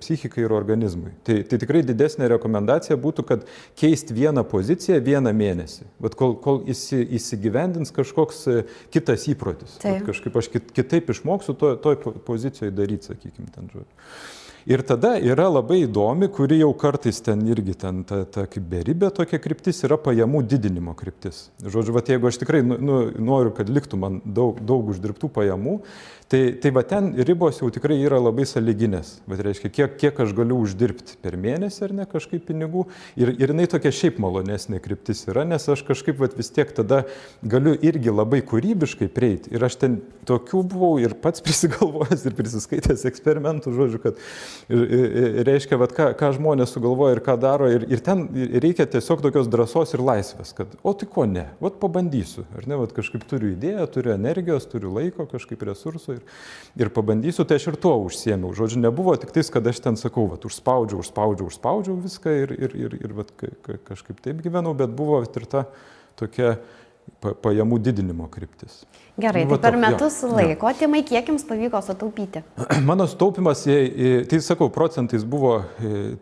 psichikai ir organizmui. Tai tikrai didesnė rekomendacija būtų, kad keisti vieną poziciją vieną mėnesį. Bet kol įsigyvendins kažkoks kitas įprotis. Kažkaip aš kitaip išmoksiu toj pozicijoje daryti, sakykime, ten žodžiu. Ir tada yra labai įdomi, kuri jau kartais ten irgi ta kaip beribė tokia kryptis yra pajamų didinimo kryptis. Žodžiu, jeigu aš tikrai noriu, kad liktų man daug uždirbtų pajamų, tai ten ribos jau tikrai yra labai sąlyginės. Reiškia, kiek aš galiu uždirbti per mėnesį ar ne kažkaip pinigų. Ir jinai tokia šiaip malonesnė kryptis yra, nes aš kažkaip vis tiek tada galiu irgi labai kūrybiškai prieiti. Ir aš ten tokių buvau ir pats prisigalvojęs ir prisiskaitęs eksperimentų, žodžiu, kad reiškia, ką žmonės sugalvoja ir ką daro. Ir ten reikia tiesiog tokios drąsos ir laisvės, kad tai ko ne, pabandysiu. Ar ne, kažkaip turiu idėją, turiu energijos, turiu laiko, kažkaip resursų. Ir pabandysiu, tai aš ir tuo užsiėmiau. Žodžiu, nebuvo tik tais, kad aš ten sakau, užspaudžiau viską ir kažkaip taip gyvenau, bet buvo ir ta tokia pajamų didinimo kryptis. Gerai, tai per metus laiko, Timai, kiek jums pavyko sutaupyti? Mano sutaupimas, tai sakau, procentais buvo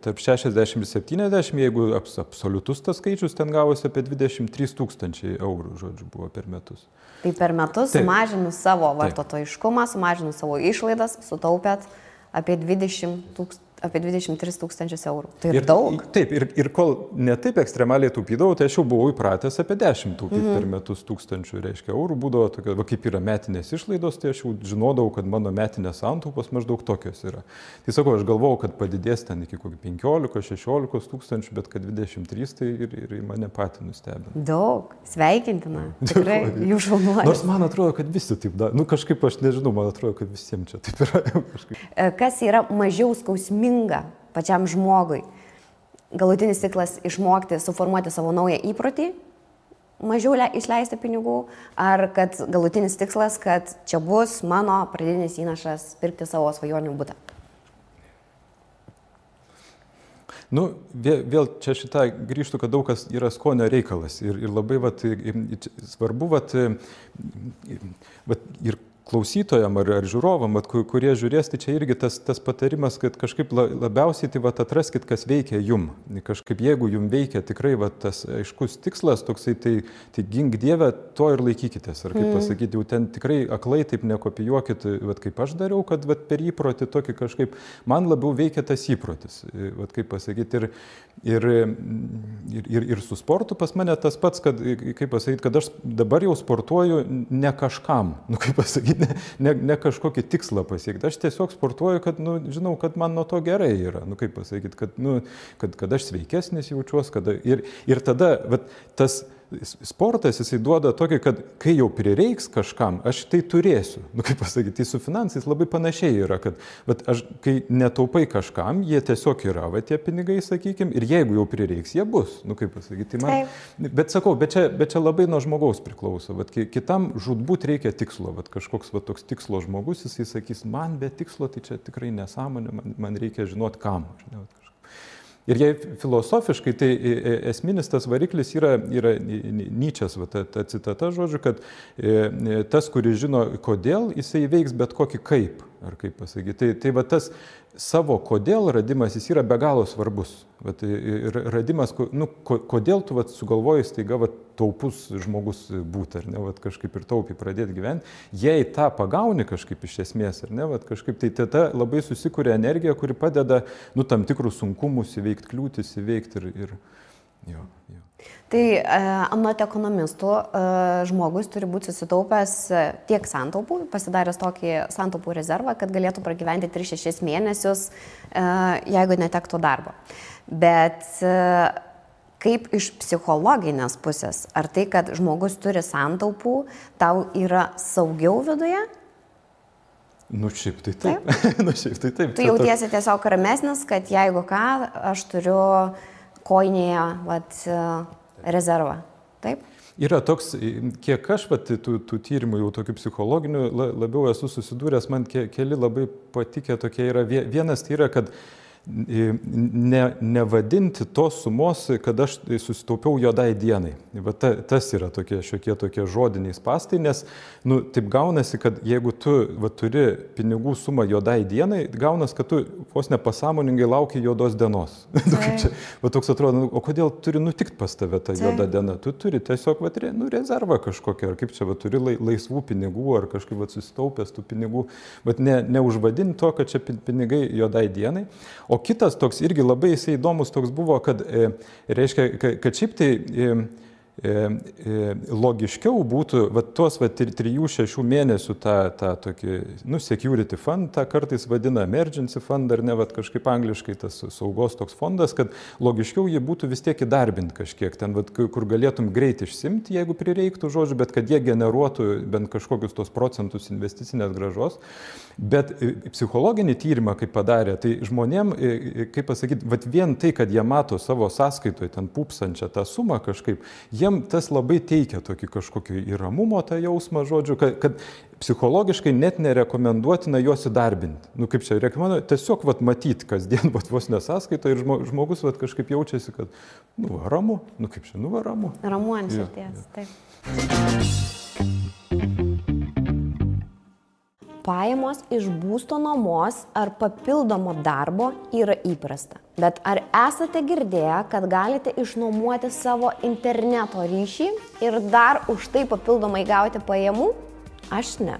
tarp 60 ir 70, jeigu absoliutus tas skaičius, ten gavosi apie 23 000 eurų, žodžiu, buvo per metus. Tai per metus sumažinus savo vartotojiškumą, sumažinus savo išlaidas, sutaupėt apie 23 000 eurų. Tai ir daug. Taip, ir kol ne taip ekstremaliai taupydavau, tai aš jau buvau įpratęs apie 10 per metus tūkstančių, reiškia, eurų būdavo tokia, kaip yra metinės išlaidos, tai aš jau žinodavau, kad mano metinės santaupos maždaug tokios yra. Tai sakau, aš galvojau, kad padidės ten iki kokį 15-16 tūkstančių, bet kad 23, tai ir mane patį nustebino. Daug, sveikintina. Tikrai, jų šaunuolis. Nors man atrodo, kad visi taip daro. Kažkaip aš nežinau, man atrodo, kad visiems čia taip yra. Kas yra mažiau skausminga pačiam žmogui? Galutinis tikslas išmokti, suformuoti savo naują įprotį, mažiau išleisti pinigų, ar kad galutinis tikslas, kad čia bus mano pradinis įnašas pirkti savo svajonių butą? Vėl čia šitą grįžtų, kad daug kas yra skonio reikalas ir labai svarbu ir klausytojam ar žiūrovam, kurie žiūrės, tai čia irgi tas patarimas, kad kažkaip labiausiai tai atraskit, kas veikia jum. Kažkaip jeigu jum veikia tikrai tas aiškus tikslas, toksai, tai gink Dieve, to ir laikykitės. Ar kaip pasakyti, jau ten tikrai aklai taip nekopijuokit, kaip aš dariau, kad per įprotį tokį kažkaip, man labiau veikia tas įprotis. Kaip pasakyti, ir su sportu pas mane tas pats, kad, kaip pasakyti, kad aš dabar jau sportuoju ne kažkam, kaip pasakyti, ne kažkokį tikslą pasiekti. Aš tiesiog sportuoju, kad, žinau, kad man nuo to gerai yra. Kaip pasakyti, kad aš sveikesnis jaučiuosi. Ir tada tas sportas, jisai duoda tokį, kad kai jau prireiks kažkam, aš tai turėsiu. Kaip pasakyti, tai su finansais labai panašiai yra, kad aš, kai netaupai kažkam, jie tiesiog yra, tie pinigai, sakykime, ir jeigu jau prireiks, jie bus. Kaip pasakyti, tai bet sakau, bet čia labai nuo žmogaus priklauso. Kitam žūtbūt reikia tikslo. Kažkoks toks tikslo žmogus, jisai sakys, man be tikslo, tai čia tikrai nesąmonė, man reikia žinoti kam. Ir jei filosofiškai, tai esminis tas variklis yra Nyčės, ta citata, žodžiu, kad tas, kuris žino kodėl, jisai veiks bet kokį kaip, ar kaip pasakyti. Tai tas savo kodėl radimas, jis yra be galo svarbus. Radimas, kodėl tu sugalvoji staiga taupus žmogus būti, ar ne, kažkaip ir taupiai pradėti gyventi. Jei tą pagauni kažkaip iš esmės, ar ne, kažkaip tai tada labai susikuria energija, kuri padeda, tam tikrus sunkumus įveikti, kliūtis įveikti ir jo. Tai anot ekonomistų žmogus turi būti susitaupęs tiek santaupų, pasidaręs tokį santaupų rezervą, kad galėtų pragyventi 3-6 mėnesius, jeigu netektų darbo. Bet kaip iš psichologinės pusės, ar tai, kad žmogus turi santaupų, tau yra saugiau viduje? Šiaip tai taip. Tu jautiesi tiesiog ramesnis, kad jeigu ką, aš turiu koinėje rezervą, taip? Yra toks, kiek aš tų tyrimų jau tokių psichologinių labiau esu susidūręs, man keli labai patikę tokie yra. Vienas tai yra, kad nevadinti tos sumos, kad aš susitaupiau juodai dienai. Va tas yra šiokie tokie žodiniai spąstai, nes taip gaunasi, kad jeigu tu turi pinigų sumą juodai dienai, gaunas, kad tu vos nepasąmoningai lauki juodos dienos. Toks atrodo, o kodėl turi nutikti pas tave ta juoda diena? Tu turi tiesiog rezervą kažkokią, ar kaip čia turi laisvų pinigų, ar kažkaip susitaupęs tų pinigų, bet neužvadinti to, kad čia pinigai juodai dienai. O kitas toks irgi labai jisai įdomus toks buvo, kad reiškia, kad šiaip tai logiškiau būtų tuos 3-6 mėnesių tą tokį, security fund, tą kartais vadina emergency fund, ar ne, kažkaip angliškai tas saugos toks fondas, kad logiškiau jį būtų vis tiek įdarbinti kažkiek, ten, kur galėtum greit išsimti, jeigu prireiktų, žodžiu, bet kad jie generuotų bent kažkokius tos procentus investicinės grąžos. Bet psichologinį tyrimą, kaip padarė, tai žmonėm, kaip pasakyti, vien tai, kad jie mato savo sąskaitoje ten pupsančią tą sumą kažkaip, jiem tas labai teikia tokį kažkokį įramumo tą jausmą, žodžiu, kad psichologiškai net nerekomenduotina juos įdarbinti. Kaip čia rekomenduoju, tiesiog matyti kasdien vos nesąskaitoje ir žmogus kažkaip jaučiasi, kad ramu, kaip čia, ramu. Ramu ant širdies, taip. Pajamos iš būsto nuomos ar papildomo darbo yra įprasta. Bet ar esate girdėję, kad galite išnuomoti savo interneto ryšį ir dar už tai papildomai gauti pajamų? Aš ne.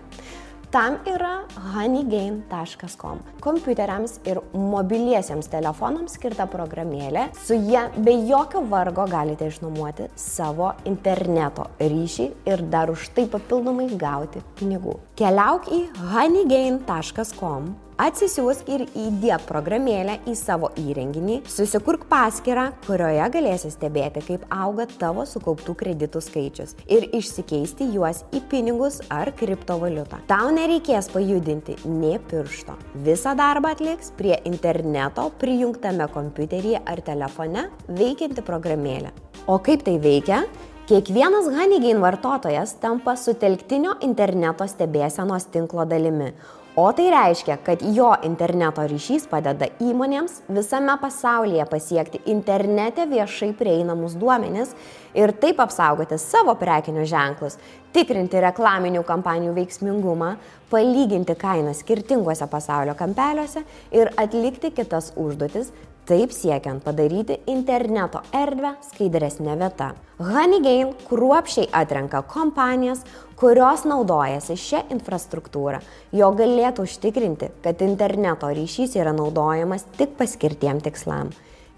Tam yra honeygain.com. Kompiuteriams ir mobiliesiems telefonams skirta programėlė. Su ja be jokio vargo galite išnuomoti savo interneto ryšį ir dar už tai papildomai gauti pinigų. Keliauk į honeygain.com, atsisiųsk ir įdiek programėlę į savo įrenginį, susikurk paskyrą, kurioje galėsi stebėti, kaip auga tavo sukauptų kreditų skaičius ir išsikeisti juos į pinigus ar kriptovaliutą. Tau nereikės pajudinti nė piršto. Visą darbą atliks prie interneto prijungtame kompiuteryje ar telefone veikianti programėlė. O kaip tai veikia? Kiekvienas Honeygain vartotojas tampa sutelktinio interneto stebėsenos tinklo dalimi. O tai reiškia, kad jo interneto ryšys padeda įmonėms visame pasaulyje pasiekti internete viešai prieinamus duomenis ir taip apsaugoti savo prekinius ženklus, tikrinti reklaminių kampanijų veiksmingumą, palyginti kainas skirtinguose pasaulio kampeliuose ir atlikti kitas užduotis, taip siekiant padaryti interneto erdvę skaidresnė vieta. Honeygain kruopščiai atrenka kompanijas, kurios naudojasi šią infrastruktūrą, jo galėtų užtikrinti, kad interneto ryšys yra naudojamas tik paskirtiem tikslam.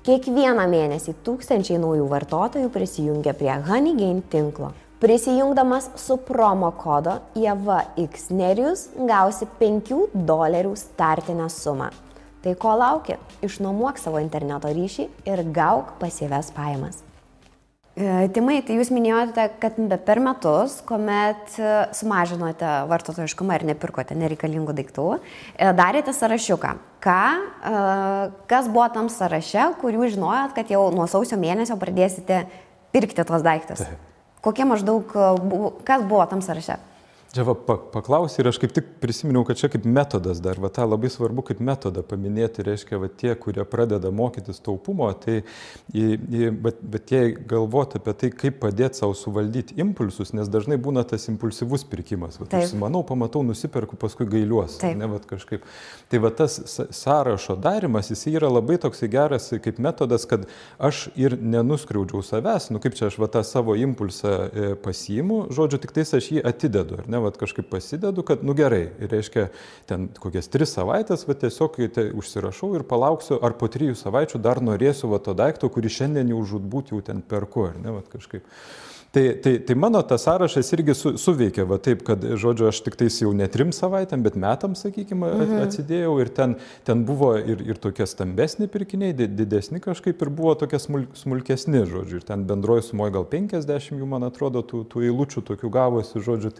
Kiekvieną mėnesį tūkstančiai naujų vartotojų prisijungia prie Honeygain tinklo. Prisijungdamas su promo kodo IEVXNERIUS gausi $5 startinę sumą. Tai ko lauki? Išnuomuok savo interneto ryšį ir gauk pasyvias pajamas. Timai, tai jūs minėjote, kad per metus, kuomet sumažinote vartotojiškumą ir nepirkote nereikalingų daiktų, darėte sąrašiuką. Kas buvo tam sąraše, kurių žinojot, kad jau nuo sausio mėnesio pradėsite pirkti tos daiktus? Kokie maždaug, kas buvo tam sąraše? Čia paklausai ir aš kaip tik prisiminiau, kad čia kaip metodas dar, tą labai svarbu kaip metodą paminėti, reiškia, tie, kurie pradeda mokytis taupumo, bet jie galvoti apie tai, kaip padėti savo suvaldyti impulsus, nes dažnai būna tas impulsyvus pirkimas. Užsimanau, pamatau, nusiperku, paskui gailiuos. Kažkaip. Tai tas sąrašo darimas, jis yra labai toksai geras kaip metodas, kad aš ir nenuskriaudžiau savęs, kaip čia aš tą savo impulsą pasiimu, žodžiu, tik tais aš jį atidedu, ar ne? Kažkaip pasidedu, kad, gerai, reiškia, ten kokias 3 savaitės, tiesiog užsirašau ir palauksiu, ar po 3 savaičių dar norėsiu to daikto, kurį šiandien jau žūtbūt jau ten perku, ar ne, kažkaip. Tai mano tas sąrašas irgi suveikia, taip, kad, žodžiu, aš tik tais jau ne 3 savaitėm, bet metams, sakykime, atsidėjau ir ten buvo ir tokie stambesni pirkiniai, didesni kažkaip ir buvo tokie smulkesni, žodžiu, ir ten bendroji sumoje gal 50 jų, man atrodo, tų eilučių tokių gavosi, žodžiu,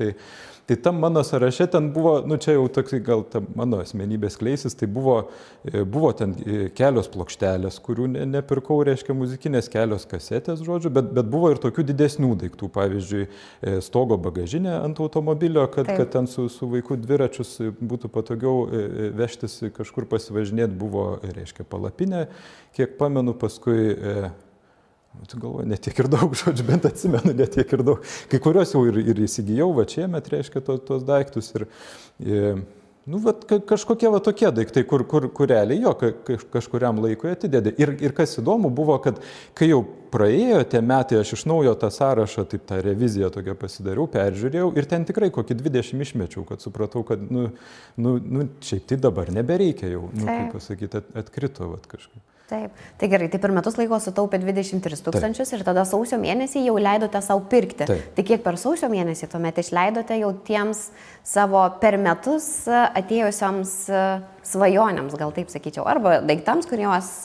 Tai tam mano sąraše ten buvo, nu čia jau toks gal ta mano asmenybės kleisis, tai buvo ten kelios plokštelės, kurių nepirkau, reiškia muzikinės, kelios kasetės, žodžiu, bet buvo ir tokių didesnių daiktų, pavyzdžiui, stogo bagažinė ant automobilio, kad ten su vaiku dviračius būtų patogiau vežtis kažkur pasivažinėti, buvo, reiškia, palapinė, kiek pamenu, paskui tu galvoji, netiek ir daug, žodžiu, bent atsimenu, netiek ir daug. Kai kuriuos jau ir įsigijau, va čia met, reiškia, tos daiktus. Nu, va, kažkokie va tokie daiktai, kur realiai jo kažkuriam laikui atidėdė. Ir kas įdomu buvo, kad kai jau praėjo tie metai, aš iš naujo tą sąrašą, taip tą reviziją tokią pasidariau, peržiūrėjau ir ten tikrai kokį 20 išmečiau, kad supratau, kad, šiaip tai dabar nebereikia jau, kaip pasakyti, atkrito vat kažkaip. Taip, tai gerai, tai per metus laiko sutaupė 23 000 ir tada sausio mėnesį jau leidote savo pirkti. Taip. Tai kiek per sausio mėnesį tuomet išleidote jau tiems savo per metus atėjusioms svajonėms, gal taip sakyčiau, arba daiktams, kuriuos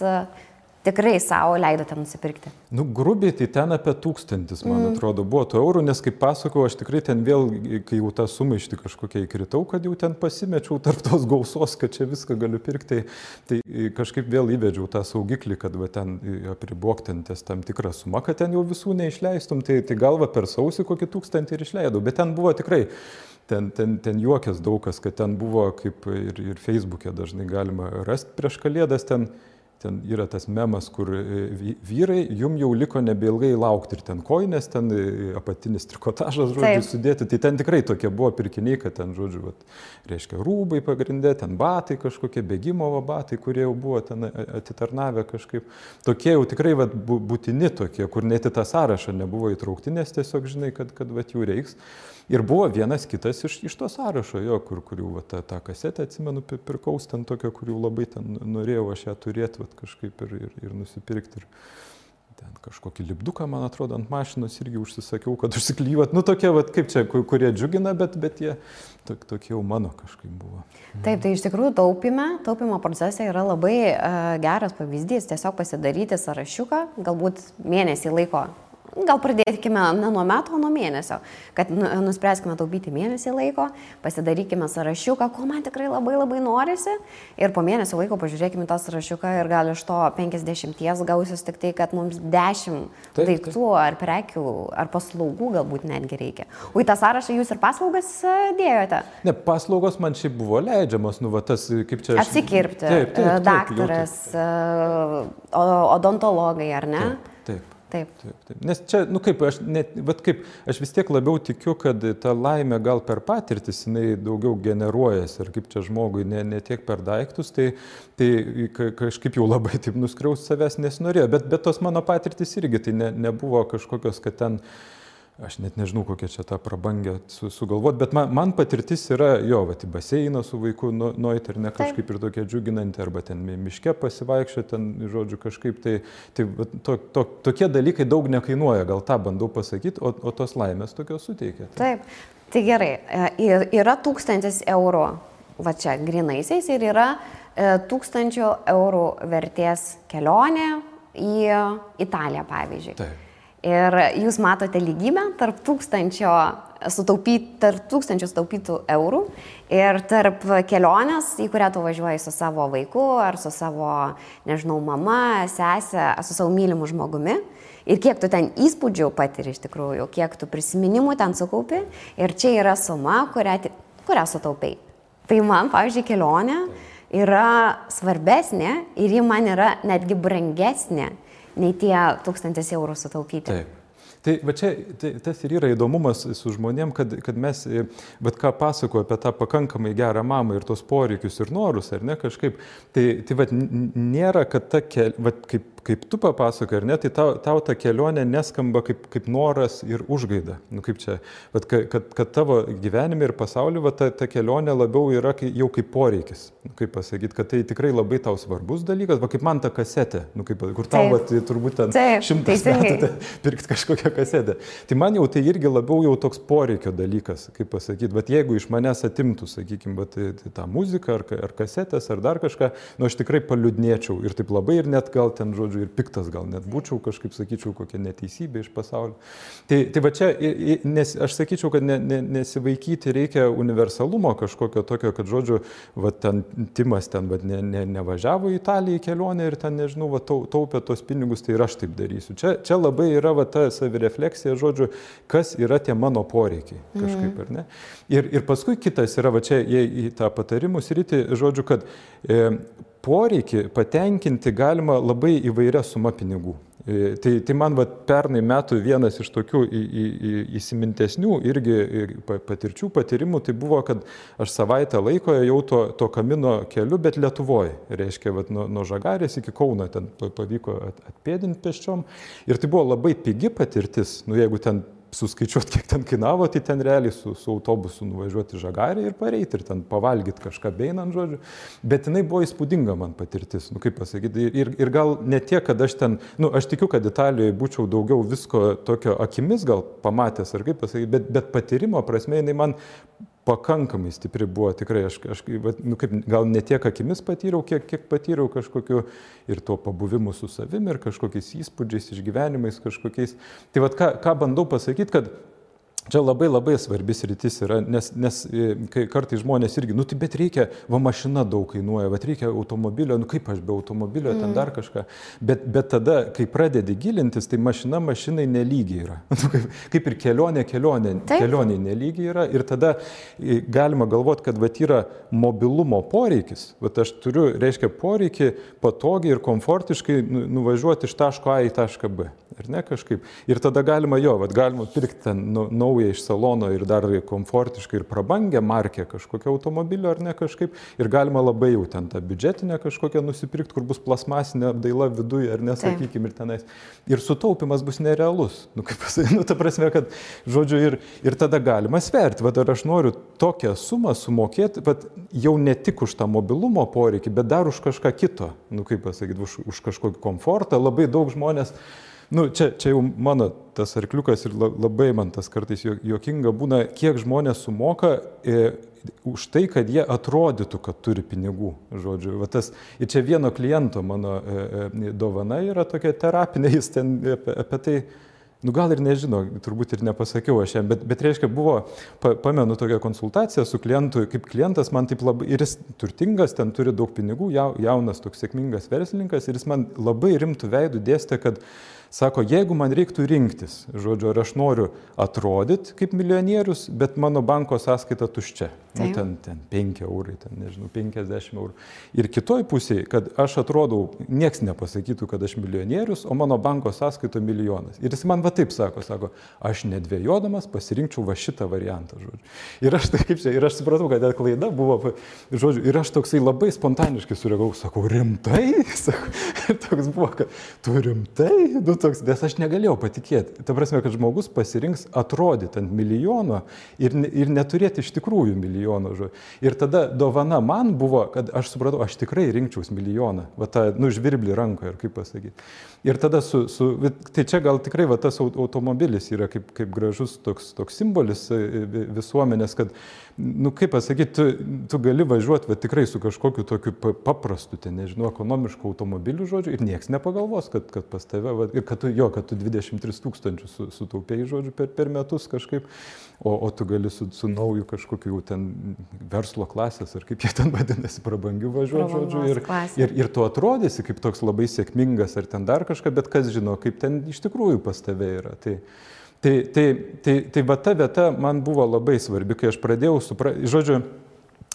tikrai savo leidote nusipirkti? Nu, grubiai tai ten apie 1000, man atrodo, buvo tų eurų, nes kaip pasakau, aš tikrai ten vėl, kai jau tą sumaištį kažkokią įkritau, kad jau ten pasimečiau tarp tos gausos, kad čia viską galiu pirkti, tai kažkaip vėl įvedžiau tą saugiklį, kad va, ten apribok ten ties tam tikrą sumą, kad ten jau visų neišleistum, tai galva per sausį kokį 1000 ir išleidau, bet ten buvo tikrai. Ten juokės daug kas, kad ten buvo, kaip ir Facebook'e dažnai galima rasti prieš Kalėdas, ten yra tas memas, kur vyrai, jum jau liko nebeilgai laukti ir ten koinės, ten apatinis trikotažas, žodžiu, sudėti. Tai ten tikrai tokie buvo pirkiniai, kad ten, žodžiu, vat, reiškia, rūbai pagrindė, ten batai kažkokie, bėgimo batai, kurie jau buvo ten atitarnavę kažkaip. Tokie jau tikrai vat, būtini tokie, kur net į tą sąrašą nebuvo įtraukti, nes tiesiog žinai, kad vat, jų reiks. Ir buvo vienas kitas iš to sąrašo, jo, kurių va, tą kasetę, atsimenu, pirkaus ten tokio, kurių labai ten norėjau aš ją turėti kažkaip ir nusipirkti. Ir ten kažkokį lipduką, man atrodo, ant mašinos irgi užsisakiau, kad užsiklyvat. Nu, tokie, va, kaip čia, kurie džiugina, bet jie tokie jau mano kažkaip buvo. Taip, tai iš tikrųjų taupimo procese yra labai geras pavyzdys. Tiesiog pasidaryti sąrašiuką, galbūt mėnesį laiko. Gal pradėkime ne nuo metų, o nuo mėnesio, kad nuspręskime taupyti mėnesį laiko, pasidarykime sąrašiuką, ko man tikrai labai labai norisi ir po mėnesio laiko pažiūrėkime tą sąrašiuką ir gal iš to 50 gausis tik tai, kad mums 10 daiktų ar prekių ar paslaugų galbūt netgi reikia. O į tą sąrašą jūs ir paslaugas dėjote? Ne, paslaugos man šiaip buvo leidžiamas, nu va tas, kaip čia... Atsikirpti, daktaras, odontologai, ar ne? Taip. Nes čia, nu kaip, aš vis tiek labiau tikiu, kad ta laimė gal per patirtis, jinai daugiau generuojasi, ir kaip čia žmogui, ne tiek per daiktus, tai kažkaip jau labai taip nuskriaust savęs nesinorėjo, bet tos mano patirtis irgi, tai nebuvo kažkokios, kad ten, aš net nežinau, kokia čia tą prabangę sugalvot, bet man patirtis yra, jo, va, į baseiną su vaiku nueit ir ne kažkaip ir tokia džiuginanti, arba ten miške pasivaikščio, ten, žodžiu, kažkaip, tokie dalykai daug nekainuoja, gal tą bandau pasakyti, o tos laimės tokios suteikia. Taip, tai gerai, yra 1000 eurų, va čia, grinaisiais, ir yra 1000 eurų vertės kelionė į Italiją, pavyzdžiui. Taip. Ir jūs matote lygybę tarp 1000 sutaupytų eurų ir tarp kelionės, į kurią tu važiuoji su savo vaiku ar su savo, nežinau, mama, sesė, su savo mylimu žmogumi. Ir kiek tu ten įspūdžių patiri iš tikrųjų, kiek tu prisiminimų ten sukaupi. Ir čia yra suma, kurią sutaupai. Tai man, pavyzdžiui, kelionė yra svarbesnė ir ji man yra netgi brangesnė nei tie 1000 eurų sutaupyti. Taip. Tai va čia tas ir yra įdomumas su žmonėm, kad mes, bet ką pasakoju apie tą pakankamai gerą mamą ir tos poreikius ir norus, ar ne, kažkaip, tai va nėra, kad ta kaip tu papasakai, ar ne, tai tau ta kelionė neskamba kaip noras ir užgaida. Nu, kaip čia, kad tavo gyvenime ir pasaulyje ta kelionė labiau yra jau kaip poreikis. Nu, kaip pasakyti, kad tai tikrai labai tau svarbus dalykas, va kaip man ta kasetė, nu, kur tau turbūt ten 100 metų pirkti kažkokią kasetę. Tai man jau tai irgi labiau jau toks poreikio dalykas, kaip pasakyti, bet jeigu iš manęs atimtų, sakykime, tą muziką ar kasetės ar dar kažką, nu aš tikrai paliūdnėčiau ir taip labai ir net gal ten, žodžiu, žodžiu, ir piktas gal net būčiau, kažkaip sakyčiau, kokia neteisybė iš pasaulio. Tai va čia, aš sakyčiau, kad nesivaikyti reikia universalumo kažkokio tokio, kad, žodžiu, va ten Timas ten nevažiavo į Italiją į kelionę ir ten, nežinau, va taupė tos pinigus, tai ir aš taip darysiu. Čia labai yra va ta savirefleksija, žodžiu, kas yra tie mano poreikiai kažkaip, ar ne? Ir paskui kitas yra, va čia į tą patarimų sritį, žodžiu, kad poreikį patenkinti galima labai įvairia suma pinigų. Tai man va, pernai metų vienas iš tokių įsimintesnių irgi patyrimų, tai buvo, kad aš savaitę laiko jau to Kamino keliu, bet Lietuvoje. Reiškia, va, nuo Žagarės iki Kauno ten pavyko atpėdinti pėsčiom. Ir tai buvo labai pigi patirtis, jeigu ten suskaičiuoti, kiek ten kainavo, tai ten realiai su autobusu nuvažiuoti į Žagarę ir pareiti ir ten pavalgyti kažką beinant, žodžiu. Bet jinai buvo įspūdinga man patirtis, kaip pasakyti. Ir gal ne tiek, kad aš ten, aš tikiu, kad Italijoje būčiau daugiau visko tokio akimis gal pamatęs, ar kaip pasakyti, bet patyrimo prasme jinai man pakankamai stipri buvo, tikrai aš gal ne tiek akimis patyriau, kiek patyriau kažkokiu ir tuo pabuvimu su savimi ir kažkokiais įspūdžiais, išgyvenimais kažkokiais. Tai vat ką bandau pasakyti, kad čia labai labai svarbis rytis yra, nes kai kartais žmonės irgi, tai bet reikia, mašina daug kainuoja, bet reikia automobilio, kaip aš be automobilio, ten dar kažką. Bet tada, kai pradedi gilintis, tai mašina mašinai nelygiai yra. Kaip ir kelionė nelygiai yra. Ir tada galima galvoti, kad yra mobilumo poreikis. Aš turiu, reiškia, poreikį patogiai ir komfortiškai nuvažiuoti iš taško A į tašką B. Ar ne kažkaip. Ir tada galima galima pirkti ten naują iš salono ir dar komfortiškai ir prabangę markę kažkokio automobilio ar ne kažkaip. Ir galima labai jau ten tą biudžetinę kažkokią nusipirkti, kur bus plasmasinė apdaila viduje ar nesakykim ir tenais. Ir sutaupimas bus nerealus. Kaip pasakyti, ta prasme, kad, žodžiu, ir tada galima sverti. Ar aš noriu tokią sumą sumokėti, jau ne tik už tą mobilumo poreikį, bet dar už kažką kito. Kaip pasakyti, už kažkokį komfortą. Labai daug žmonės. Čia jau mano tas arkliukas ir labai man tas kartais juokinga būna, kiek žmonės sumoka už tai, kad jie atrodytų, kad turi pinigų. Žodžiu, ir čia vieno kliento mano dovana yra tokia terapinė, jis ten apie tai, gal ir nežino, turbūt ir nepasakiau aš jam, bet reiškia buvo, pamenu tokią konsultaciją su klientu, kaip klientas man taip labai, ir jis turtingas, ten turi daug pinigų, jaunas toks sėkmingas verslininkas, ir jis man labai rimtų veidų dėstė, kad sako, jeigu man reiktų rinktis, žodžiu, ar aš noriu atrodyti kaip milijonierius, bet mano banko sąskaita tuščia. Ten 5 eurai, ten, nežinau, 50 eurų. Ir kitoj pusėje, kad aš atrodau, nieks nepasakytų, kad aš milijonierius, o mano banko sąskaita milijonas. Ir jis man taip sako, aš nedvėjodamas pasirinkčiau šitą variantą, žodžiu. Ir aš ir aš supratau, kad klaida buvo, žodžiu, ir aš toksai labai spontaniškai sureagavau, sakau, rimtai? Ir toks buvo, kad tu rimtai? Nes aš negalėjau patikėti. Ta prasme, kad žmogus pasirinks atrodyti ant milijono ir neturėti iš tikrųjų milijono. Ir tada dovana man buvo, kad aš supratau, aš tikrai rinkčiaus milijoną. Žvirblį rankoje, kaip pasakyti. Ir tada tai čia gal tikrai tas automobilis yra kaip gražus toks simbolis visuomenės, kad, kaip pasakyti, tu gali važiuoti tikrai su kažkokiu tokiu paprastu, nežinau, ekonomišku automobiliu, žodžiu, ir nieks nepagalvos, kad pas tave, ir kad tu 23 000 sutaupėjai, žodžiu, per metus kažkaip, o tu gali su nauju kažkokiu ten verslo klasės, ar kaip jie ten vadinasi, prabangių važiuoti, žodžiu, ir tu atrodysi kaip toks labai sėkmingas, ar ten dar kažką, bet kas žino, kaip ten iš tikrųjų pas tave yra. Tai va ta vieta man buvo labai svarbi, kai aš pradėjau suprasti, žodžiu,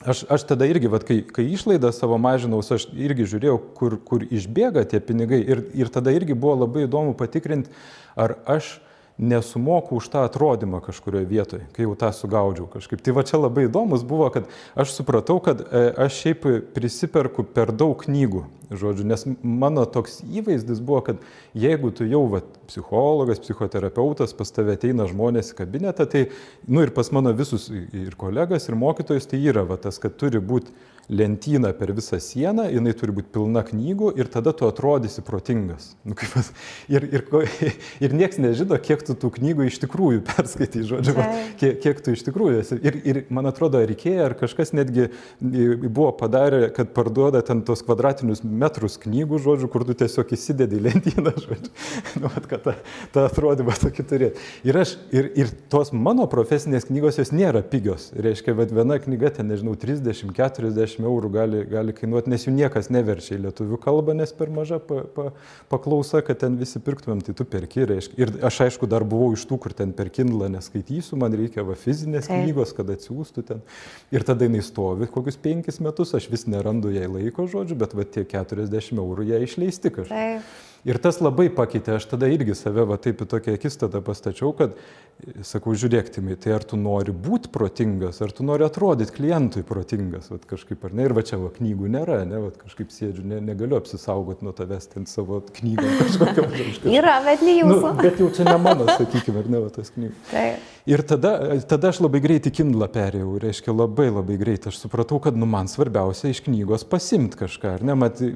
aš tada irgi, kai išlaidą savo mažinaus, aš irgi žiūrėjau, kur išbėga tie pinigai ir tada irgi buvo labai įdomu patikrinti, ar aš nesumoku už tą atrodymą kažkurioje vietoje, kai jau tą sugaudžiau kažkaip. Tai va čia labai įdomus buvo, kad aš supratau, kad aš šiaip prisiperku per daug knygų, žodžiu, nes mano toks įvaizdis buvo, kad jeigu tu jau psichologas, psichoterapeutas, pas tave ateina žmonės į kabinetą, tai, ir pas mano visus ir kolegas, ir mokytojus, tai yra tas, kad turi būti lentyną per visą sieną, jinai turi būti pilna knygų ir tada tu atrodysi protingas. Nu, ir nieks nežino, kiek tu tų knygų iš tikrųjų perskaitai, žodžiu, kiek tu iš tikrųjų esi. Ir man atrodo, Ikea ar kažkas netgi buvo padarę, kad parduoda ten tos kvadratinius metrus knygų, žodžiu, kur tu tiesiog įsidedi į lentyną, žodžiu. Nu, kad tą atrodymą tokį turėti. Ir tos mano profesinės knygos, jos nėra pigios. Reiškia, bet viena knyga, ten, nežinau, 30-40 eurų gali kainuoti, nes jų niekas neverčia į lietuvių kalbą, nes per maža paklausa, kad ten visi pirktumėm, tai tu perki, reiškia. Ir aš aišku dar buvau iš tų, kur ten per Kindle neskaitysiu, man reikia fizinės knygos, kad atsiųstų ten. Ir tada jinai stovi kokius 5 metus, aš vis nerandu jai laiko, žodžiu, bet tie 40 eurų ją išleisti kažkaip. Ir tas labai pakeitė, aš tada irgi save taip į tokią akistatą pastačiau, kad, sakau, žiūrėk, Timai, tai ar tu nori būti protingas, ar tu nori atrodyti klientui protingas, kažkaip ar ne, ir čia knygų nėra, ne, kažkaip sėdžiu, negaliu apsisaugoti nuo tavęs ten savo knygą kažkokiam. Yra, bet ne jūsų. Nu, bet jau čia ne mano, sakykime, ar ne, tas knygų. Taip. Ir tada aš labai greitai Kindle perėjau, reiškia labai greitai. Aš supratau, kad man svarbiausia iš knygos pasimti kažką, ar ne?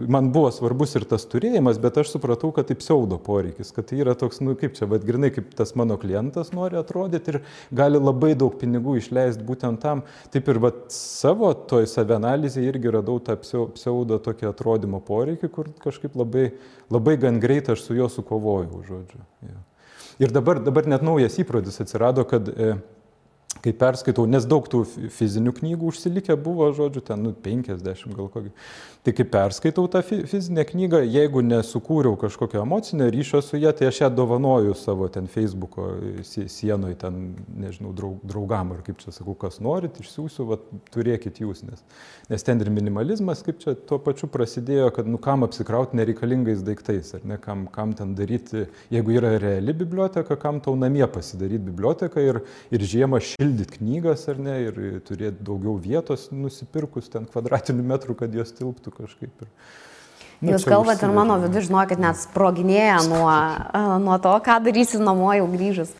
Man buvo svarbus ir tas turėjimas, bet aš supratau, kad tai pseudo poreikis, kad tai yra toks, kaip čia, grinai, kaip tas mano klientas nori atrodyti ir gali labai daug pinigų išleisti būtent tam. Taip ir savo toj savianalizėje irgi radau tą pseudo tokį atrodymo poreikį, kur kažkaip labai gan greitai aš su juo sukovojau, žodžiu. Ja. Ir dabar net naujas įprotis atsirado, kad kai perskaitau, nes daug tų fizinių knygų užsilikę buvo, žodžiu, ten 50 gal kokį. Tai kai perskaitau tą fizinę knygą, jeigu nesukūriau kažkokio emocinio ryšio su ją, tai aš ją dovanoju savo ten Facebooko sienoje, ten, nežinau, draugam, ar kaip čia sakau, kas norit, išsiųsiu, turėkit jūs, nes ten ir minimalizmas, kaip čia tuo pačiu prasidėjo, kad kam apsikrauti nereikalingais daiktais, ar ne, kam ten daryti, jeigu yra reali biblioteka, kam tau namie pasidaryti biblioteką ir žiemą šildyti knygas, ar ne, ir turėti daugiau vietos nusipirkus ten kvadratinių metrų, kad jos tilptų kažkaip. Jūs kalbate ir mano vidų, žinokit, net sproginėja nuo to, ką darysi namo jau grįžus.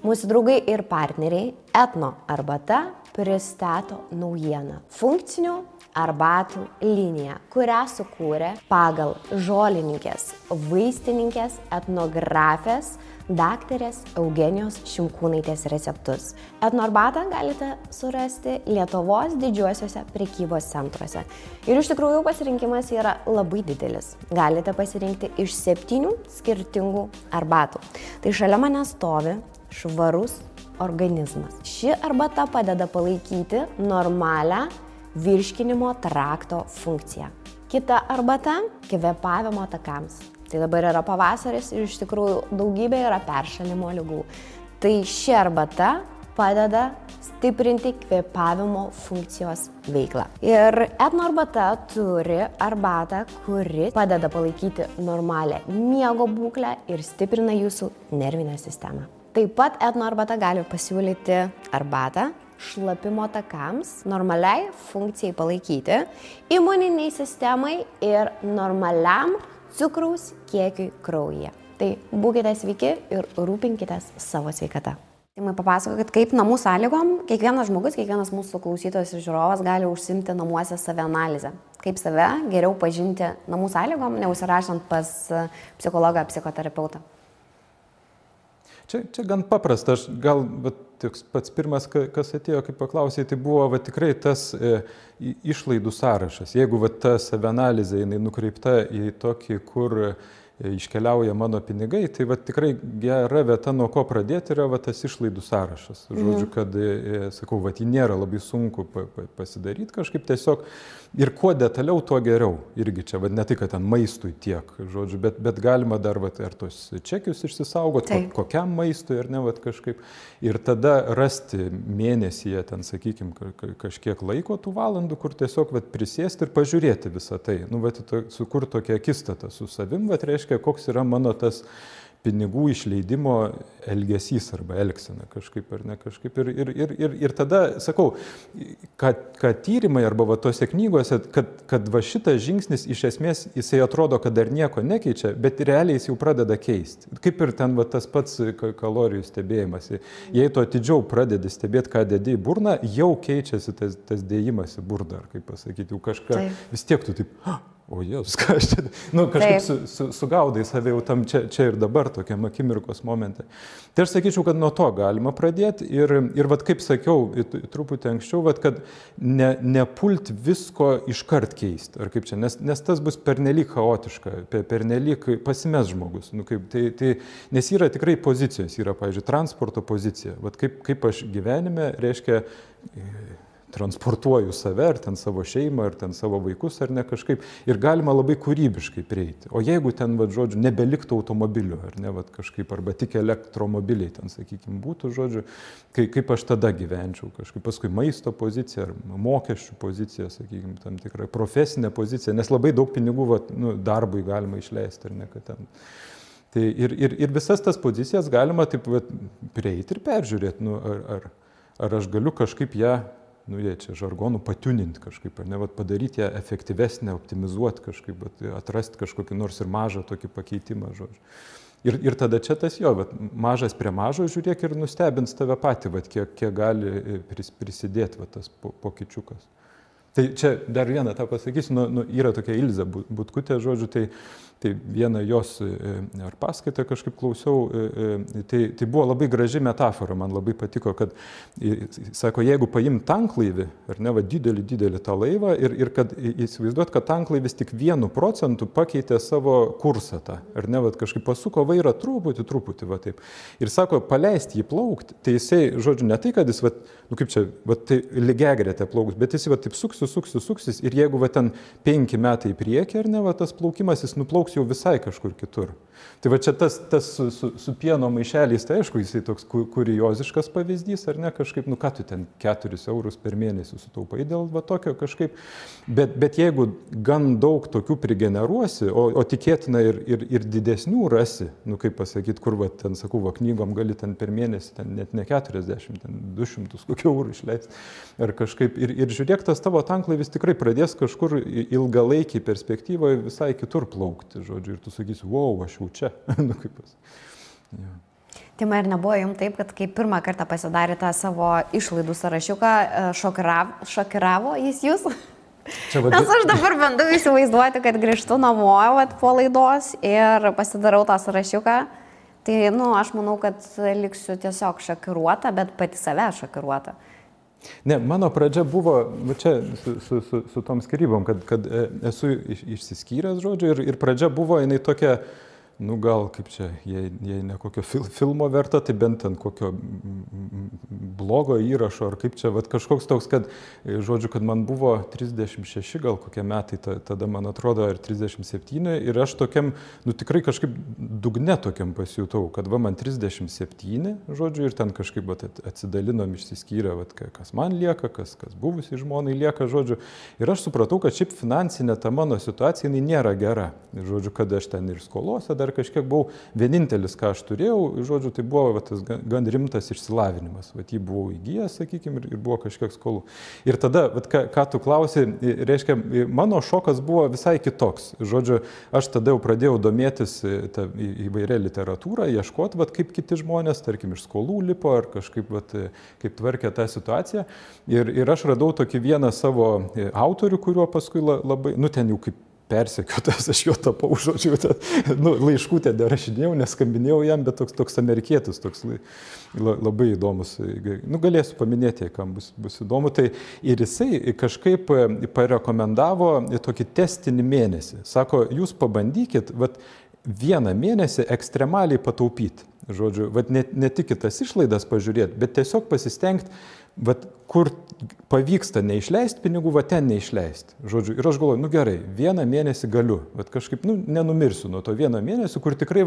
Mūsų draugai ir partneriai Etno arbata pristato naujieną. Funkcinių arbatų liniją, kurią sukūrė pagal žolininkės, vaistininkės, etnografės, daktarės Eugenijos Šimkūnaitės receptus. Etno arbatą galite surasti Lietuvos didžiuosiuose prekybos centruose. Ir iš tikrųjų pasirinkimas yra labai didelis. Galite pasirinkti iš 7 skirtingų arbatų. Tai šalia mane stovi švarus organizmas. Ši arbata padeda palaikyti normalią virškinimo trakto funkciją. Kita arbata – kvėpavimo takams. Tai dabar yra pavasaris ir iš tikrųjų daugybė yra peršalimo ligų. Tai ši arbata padeda stiprinti kvėpavimo funkcijos veiklą. Ir Etno arbata turi arbatą, kuri padeda palaikyti normalią miego būklę ir stiprina jūsų nervinę sistemą. Taip pat Etno arbata gali pasiūlyti arbatą šlapimo takams, normaliai funkcijai palaikyti, imuniniai sistemai ir normaliam cukraus kiekiui kraujyje. Tai būkite sveiki ir rūpinkitės savo sveikata. Timai, papasakokit, kaip namų sąlygom kiekvienas žmogus, kiekvienas mūsų klausytojas ir žiūrovas gali užsiimti namuose savianalizę. Kaip save geriau pažinti namų sąlygom, neužsirašant pas psichologą, psichoterapeutą. Čia gan paprasta, aš gal pats pirmas, kas atėjo, kaip paklausė, tai buvo tikrai tas išlaidų sąrašas. Jeigu ta savianalizė jinai nukreipta į tokį, kur iškeliauja mano pinigai, tai tikrai gera vieta, nuo ko pradėti, yra tas išlaidų sąrašas. Žodžiu, kad, sakau, jį nėra labai sunku pasidaryti kažkaip tiesiog. Ir kuo detaliau, tuo geriau. Irgi čia, ne tai, kad ten maistui tiek, žodžiu, bet galima dar ar tos čekius išsisaugoti, kokiam maistui, ar ne, kažkaip. Ir tada rasti mėnesyje, ten, sakykime, kažkiek laiko tų valandų, kur tiesiog prisėsti ir pažiūrėti visą tai. Sukurti tokią akistatą su savim, reiškia, koks yra mano tas pinigų išleidimo elgesys arba elgsena kažkaip ar ne kažkaip. Ir tada, sakau, kad tyrimai arba va tose knygose, kad va šitas žingsnis iš esmės jisai atrodo, kad dar nieko nekeičia, bet realiai jis jau pradeda keisti. Kaip ir ten va tas pats kalorijų stebėjimas. Jei tu atidžiau pradedi stebėti, ką dedi į burną, jau keičiasi tas dėjimas į burną, ar kaip pasakyti, jau kažką vis tiek tu taip... O Jėzus, ką aš čia, kažkaip sugaudai save jau tam čia ir dabar tokiam akimirkos momente. Tai aš sakyčiau, kad nuo to galima pradėti ir vat kaip sakiau truputį anksčiau, vat kad nepult visko iškart keisti, ar kaip čia, nes tas bus pernelyg chaotiška, pernelyg pasimes žmogus. Nes yra tikrai pozicijos, yra, pavyzdžiui, transporto pozicija. Vat kaip aš gyvenime, reiškia, transportuoju save, ar ten savo šeimą, ar ten savo vaikus, ar ne kažkaip. Ir galima labai kūrybiškai prieiti. O jeigu ten, žodžiu, nebeliktų automobilių, ar ne, kažkaip, arba tik elektromobiliai ten, sakykime, būtų, žodžiu, kaip aš tada gyvenčiau kažkaip. Paskui maisto pozicija, ar mokesčių pozicija, sakykime, tam tikra profesinė pozicija, nes labai daug pinigų darbui galima išleisti, ar ne, kad ten. Tai ir visas tas pozicijas galima taip prieiti ir peržiūrėti, ar aš galiu kažkaip ją, jie čia žargonų patiuninti kažkaip, ar ne, padaryti ją efektyvesnę, optimizuoti kažkaip, atrasti kažkokį nors ir mažą tokį pakeitimą, žodžiu. Ir tada čia tas mažas prie mažo žiūrėk ir nustebins tave patį, kiek gali prisidėti tas pokyčiukas. Tai čia dar vieną tą pasakysiu, yra tokia Ilzė Butkutė, žodžiu, tai vieną jos ar paskaitą kažkaip klausiau, tai buvo labai graži metafora, man labai patiko, kad, sako, jeigu paim tanklaivį, ar ne, didelį tą laivą ir kad įsivaizduot, kad tanklaivis tik 1% pakeitė savo kursą tą, ar ne, kažkaip pasuko vairą truputį, taip. Ir sako, paleisti jį plaukti, tai jisai, žodžiu, ne tai, kad jis, kaip čia, tai lygiagretė plauks, bet jis taip suksis ir jeigu ten 5 metai į priekį, ar ne, tas plaukimas, jis nuplauks jau visai kažkur kitur. Tai čia tas su pieno maišeliais, tai aišku, jisai toks kurioziškas pavyzdys, ar ne, kažkaip, ką tu ten 4 eurus per mėnesį sutaupai dėl tokio kažkaip, bet jeigu gan daug tokių prigeneruosi, o tikėtina ir didesnių rasi, kaip pasakyti, kur ten, sakau, knygom gali ten per mėnesį, ten net ne 40, ten 200 kokių eurų išleisti, ar kažkaip, ir žiūrėk, tas tavo tanklaivis tikrai pradės kažkur ilgalaikiai perspektyvoje visai kitur plaukti, žodžiu, ir tu sakysi, wow, aš jau čia. Tima, ir nebuvo jums taip, kad kai pirmą kartą pasidarė tą savo išlaidų sąrašiuką, šokiravo jis jūs? Nes aš dabar bandau įsivaizduoti, kad grįžtu namo po laidos ir pasidarau tą sąrašiuką. Tai, aš manau, kad liksiu tiesiog šokiruota, bet pati save šokiruota. Ne, mano pradžia buvo, čia su tom skirybom, kad esu išsiskyręs, žodžiu, ir pradžia buvo, jinai tokia, gal kaip čia, jei ne kokio filmo verta, tai bent ten kokio blogo įrašo, ar kaip čia, kažkoks toks, kad, žodžiu, kad man buvo 36 gal kokie metai, tada man atrodo, ar 37, ir aš tokiam, tikrai kažkaip dugne tokiam pasijutau, kad man 37, žodžiu, ir ten kažkaip atsidalinom, išsiskyrę, kas man lieka, kas buvusiai žmonai lieka, žodžiu, ir aš supratau, kad šiaip finansinė ta mano situacija, jinai nėra gera, žodžiu, kad aš ten ir skolose dar kažkiek buvau, vienintelis, ką aš turėjau, žodžiu, tai buvo tas gan rimtas išsilavinimas, jį buvau įgijęs, sakykime, ir buvo kažkiek skolų. Ir tada, ką tu klausi, reiškia, mano šokas buvo visai kitoks. Žodžiu, aš tada jau pradėjau domėtis įvairia literatūrą, ieškoti, kaip kiti žmonės, tarkim, iš skolų lipo, ar kažkaip, kaip tvarkė tą situaciją. Ir aš radau tokį vieną savo autorių, kuriuo paskui labai, ten jau kaip persekiotas, aš jo tapau, žodžiu, laiškų ten rašinėjau, neskambinėjau jam, bet toks amerikietis, toks labai įdomus, galėsiu paminėti, kam bus įdomu, tai ir jisai kažkaip parekomendavo tokį testinį mėnesį. Sako, jūs pabandykit, 1 mėnesį ekstremaliai pataupyti, žodžiu, ne tik kitas išlaidas pažiūrėti, bet tiesiog pasistengti, kur pavyksta neišleisti pinigų, ten neišleisti. Žodžiu, ir aš galvoju, gerai, 1 mėnesį galiu, kažkaip, nenumirsiu nuo to 1 mėnesį, kur tikrai,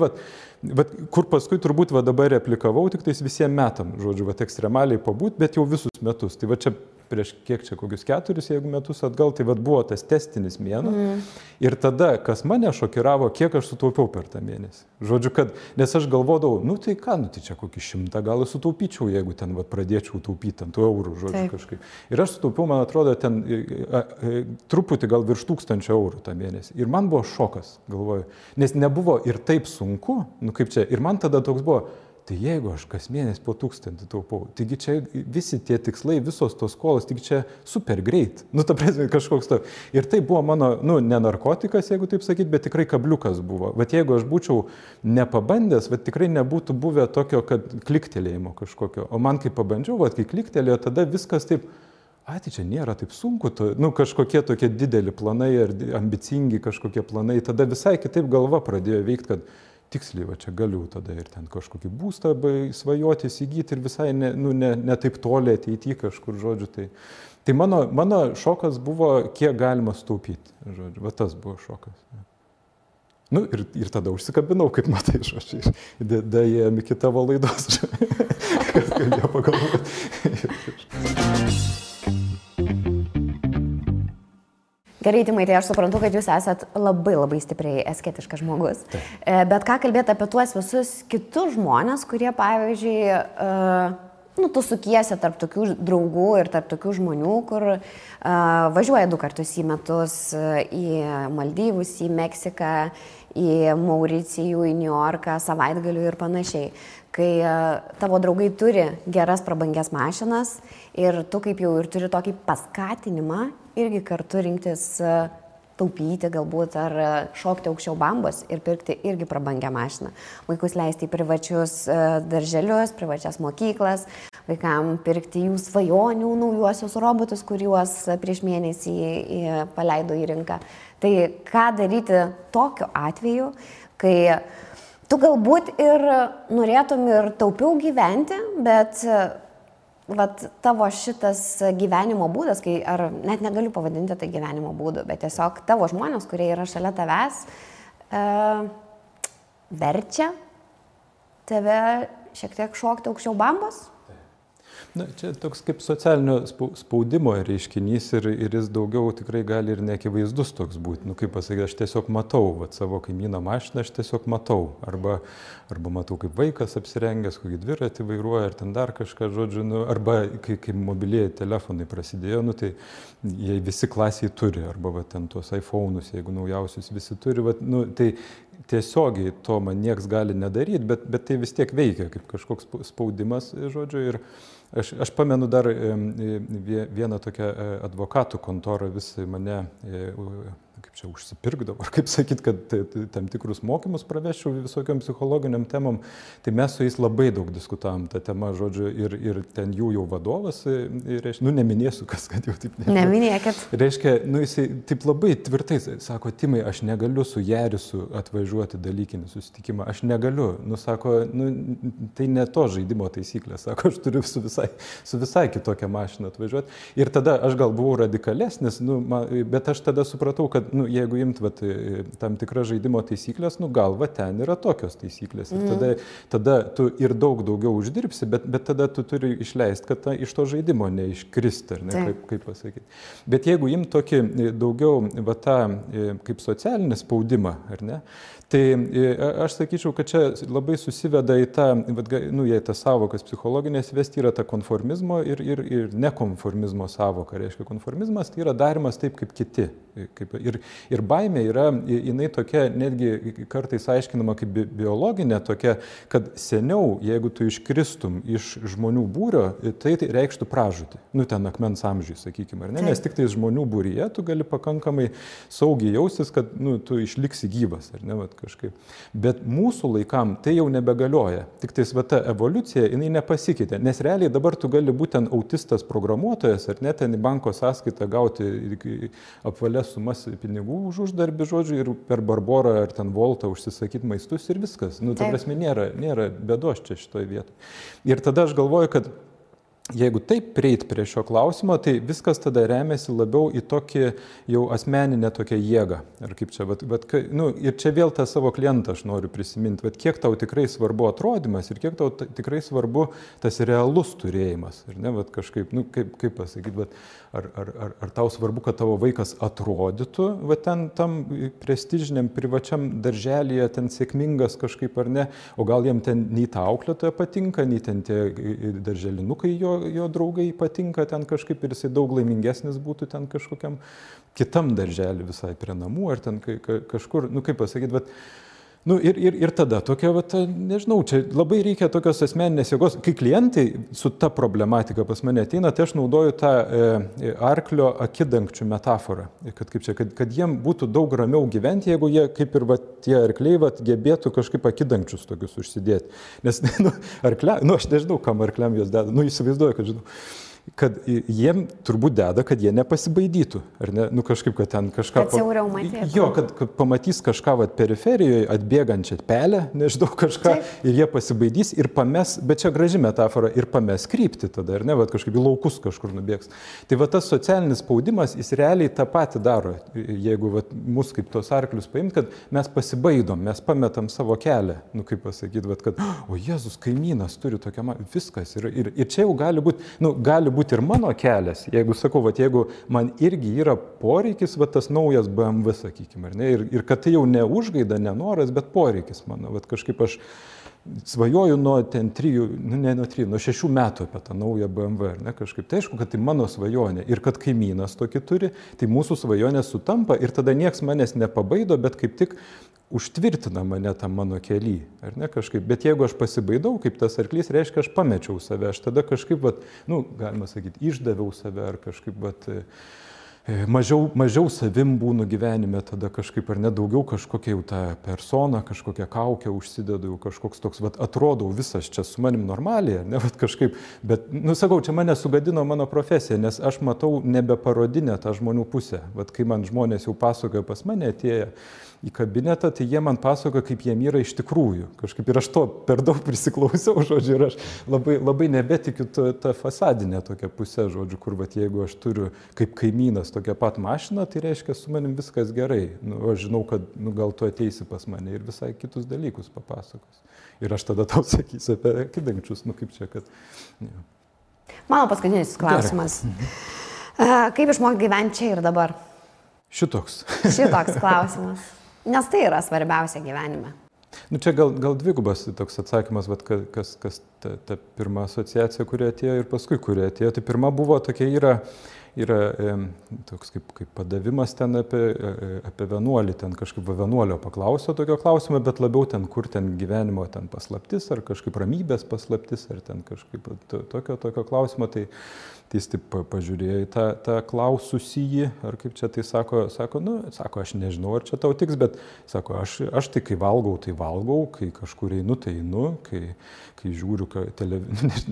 kur paskui turbūt dabar replikavau, tik tais visiems metam, žodžiu, ekstremaliai pabūt, bet jau visus metus. Tai čia prieš kiek čia, kokius 4, jeigu metus atgal, tai vat buvo tas testinis mėnuo. Ir tada, kas mane šokiravo, kiek aš sutaupiau per tą mėnesį. Žodžiu, kad, nes aš galvodavau, nu tai ką, nu tai čia kokį 100 gal sutaupyčiau, jeigu ten vat pradėčiau taupyti ant tų eurų, žodžiu, kažkaip. Ir aš sutaupiau, man atrodo, ten truputį gal virš 1000 eurų tą mėnesį. Ir man buvo šokas, galvoju, nes nebuvo ir taip sunku, nu kaip čia, ir man tada toks buvo, tai jeigu aš kas mėnesį po 1000 taupau, taigi čia visi tie tikslai, visos tos skolos, taigi čia super greit, nu ta prasme kažkoks to. Ir tai buvo mano, nu ne narkotikas, jeigu taip sakyt, bet tikrai kabliukas buvo. Vat jeigu aš būčiau nepabandęs, vat tikrai nebūtų buvę tokio, kad kliktelėjimo kažkokio. O man kai pabandžiau, vat kai kliktelėjo, tada viskas taip, tai čia nėra taip sunku, nu kažkokie tokie dideli planai ar ambicingi kažkokie planai, tada visai kitaip galva pradėjo veikti, kad tiksliai, va čia galiu tada ir ten kažkokį būstą svajoti, įsigyti ir visai ne taip toli ateity kažkur, žodžiu. Tai mano šokas buvo, kiek galima sutaupyti, žodžiu, va tas buvo šokas. Nu ir tada užsikabinau, kaip matai, žodžiu, dėjom iki tavo laidos, kad galėjo pagalvoti. Gerai, Timai, tai aš suprantu, kad jūs esat labai stipriai asketiškas žmogus. Bet ką kalbėti apie tuos visus kitus žmonės, kurie, pavyzdžiui, tu sukiesi tarp tokių draugų ir tarp tokių žmonių, kur važiuoja 2 kartus į metus į Maldyvus, į Meksiką, į Mauricijų, į Niujorką, savaitgalių ir panašiai. Kai tavo draugai turi geras prabangias mašinas ir tu kaip jau ir turi tokį paskatinimą irgi kartu rinktis taupyti galbūt ar šokti aukščiau bambos ir pirkti irgi prabangią mašiną. Vaikus leisti į privačius darželius, privačias mokyklas, vaikam pirkti jų svajonių naujuosius robotus, kuriuos prieš mėnesį paleido į rinką. Tai ką daryti tokiu atveju, kai tu galbūt ir norėtum ir taupiau gyventi, bet vat tavo šitas gyvenimo būdas, kai, ar net negaliu pavadinti tai gyvenimo būdu, bet tiesiog tavo žmonės, kurie yra šalia tavęs, verčia tave šiek tiek šokti aukščiau bambos? Na, čia toks kaip socialinio spaudimo reiškinys ir jis daugiau tikrai gali ir neakivaizdus toks būti. Nu, kaip pasakyti, aš tiesiog matau savo kaimyną mašiną, aš tiesiog matau. Arba matau, kaip vaikas apsirengęs, kokį dviratį vairuoja, ar ten dar kažką, žodžiu, arba kai mobilieji telefonai prasidėjo, tai jie visi klasiai turi, arba ten tuos iPhone'us, jeigu naujausius visi turi, tai tiesiogiai to man nieks gali nedaryti, bet tai vis tiek veikia kaip kažkoks spaudimas, žodžiu, ir aš pamenu dar vieną tokią advokatų kontorą vis mane, kaip čia užsipirkdavo, ar kaip sakyt, kad tam tikrus mokymus praveščiau visokiam psichologiniam temam, tai mes su jais labai daug diskutavom tą temą, žodžiu, ir ten jų jau vadovas, neminėsiu, kas, kad jau taip neminėkit. Reiškia, jisai taip labai tvirtai sako, Timai, aš negaliu su Jarisu atvažiuoti dalykinį susitikimą, aš negaliu, sako, tai ne to žaidimo taisyklė, sako, aš turiu su visai kitokią mašiną atvažiuoti. Ir tada aš gal buvau radikalesnis, bet aš tada supratau, kad jeigu imt tam tikras žaidimo taisyklės, gal ten yra tokios taisyklės. Ir tada tu ir daugiau uždirbsi, bet tada tu turi išleisti, kad iš to žaidimo neiškristi, ar ne, kaip pasakyti. Bet jeigu imt tokį daugiau kaip socialinį spaudimą, ar ne, tai aš sakyčiau, kad čia labai susiveda į tą, jei tas savokas psichologinės vesti yra ta konformizmo ir nekonformizmo savoka. Reiškia, konformizmas tai yra darimas taip kaip kiti. Ir baimė yra, jinai tokia, netgi kartais aiškinama kaip biologinė tokia, kad seniau, jeigu tu iškristum iš žmonių būrio, tai reikštų pražūtį. Ten akmens amžiui, sakykime, ar ne? Nes tik tais žmonių būryje tu gali pakankamai saugiai jaustis, kad tu išliksi gyvas, ar ne, kažkaip. Bet mūsų laikam tai jau nebegalioja. Tik tais ta evoliucija, jinai nepasikeitė. Nes realiai dabar tu gali būti ten autistas programuotojas, ar ne, ten į banko sąskaitą gauti apvalės sumas pinigų už uždarbį, žodžiu, ir per Barborą ar ten Voltą užsisakyti maistus ir viskas. Ta prasme, nėra bėdos čia šitoje vietoje. Ir tada aš galvoju, kad jeigu taip prieit prie šio klausimo, tai viskas tada remiasi labiau į tokį jau asmeninę tokią jėgą. Ar kaip čia, ir čia vėl tą savo klientą aš noriu prisiminti, kiek tau tikrai svarbu atrodymas ir kiek tau tikrai svarbu tas realus turėjimas. Ir ne, kažkaip, kaip pasakyti, ar tau svarbu, kad tavo vaikas atrodytų, ten tam prestižiniam privačiam darželyje, ten sėkmingas kažkaip ar ne, o gal jiem ten nei ta auklėtoja patinka, nei ten tie darželinukai jo draugai patinka ten kažkaip ir jisai daug laimingesnis būtų ten kažkokiam kitam darželį visai prie namų ar ten kažkur, kaip pasakyti, ir tada tokia, nežinau, čia labai reikia tokios asmeninės jėgos. Kai klientai su ta problematika pas mane ateina, tai aš naudoju tą arklio akidangčių metaforą, kad jiem būtų daug ramiau gyventi, jeigu jie, kaip ir tie arkliai, gebėtų kažkaip akidangčius tokius užsidėti. Nes, aš nežinau, kam arkliam jos deda, įsivaizduoju, kad žinau. Kad jiem turbūt deda, kad jie nepasibaidytų, ar ne, kažkaip, kad ten kažką... Kad siauriau matytų. Jo, kad pamatys kažką periferijoje, atbėgančią pelę, nežinau, kažką, ir jie pasibaidys ir pames, bet čia graži metafora, ir pames krypti tada, ar ne, kažkaip į laukus kažkur nubėgs. Tai tas socialinis spaudimas, jis realiai tą patį daro, jeigu mus kaip tos arklius paimt, kad mes pasibaidom, mes pametam savo kelią, kaip pasakyti, kad, o Jėzus, kaimynas turi tokią, viskas, ir čia jau gali būti ir mano kelias, jeigu sakau, jeigu man irgi yra poreikis, tas naujas BMW, sakykime, ar ne, ir kad tai jau ne užgaida, ne noras, bet poreikis mano, kažkaip aš svajoju nuo 6 metų apie tą naują BMW, ar ne, kažkaip, tai aišku, kad tai mano svajonė ir kad kaimynas tokį turi, tai mūsų svajonė sutampa ir tada nieks manęs nepabaido, bet kaip tik užtvirtina mane tam mano kely, ar ne, kažkaip, bet jeigu aš pasibaidau, kaip tas arklys, reiškia, aš pamečiau save, aš tada kažkaip, galima sakyti, išdaviau save, ar kažkaip, mažiau savim būnu gyvenime, tada kažkaip, ar ne, daugiau kažkokia jau ta persona, kažkokia kaukė užsidedu, kažkoks toks, atrodau visas čia su manim normaliai, ne, kažkaip, bet, sakau, čia mane sugadino mano profesija, nes aš matau nebeparodinę tą žmonių pusę, kai man žmonės jau pasakoja pas mane atėję į kabinetą, tai jie man pasakoja, kaip jiem yra iš tikrųjų. Kažkaip ir aš to per daug prisiklausiau, žodžiu, ir aš labai nebetikiu tą fasadinę tokią pusę, žodžiu, kur, jeigu aš turiu kaip kaimynas tokią pat mašiną, tai reiškia, su manim viskas gerai. Aš žinau, kad gal tu ateisi pas mane ir visai kitus dalykus papasakos. Ir aš tada tau sakysiu apie akidangčius, kaip čia, kad... Ja. Mano paskutinis klausimas. Kaip išmokti gyventi čia ir dabar? Šitoks klausimas. Nes tai yra svarbiausia gyvenime. Čia gal dvigubas toks atsakymas, kas ta pirma asociacija, kuri atėjo ir paskui, kuri atėjo. Tai pirma buvo tokia yra toks kaip padavimas ten apie vienuolį, ten kažkaip vienuolio paklausio tokio klausimo, bet labiau ten, kur ten gyvenimo ten paslaptis, ar kažkaip ramybės paslaptis, ar ten kažkaip tokio klausimo. Tai jis taip pažiūrėjo į tą klaususįjį, ar kaip čia tai sako, aš nežinau, ar čia tau tiks, bet sako, aš tai kai valgau, kai kažkur einu, tai einu, kai žiūriu,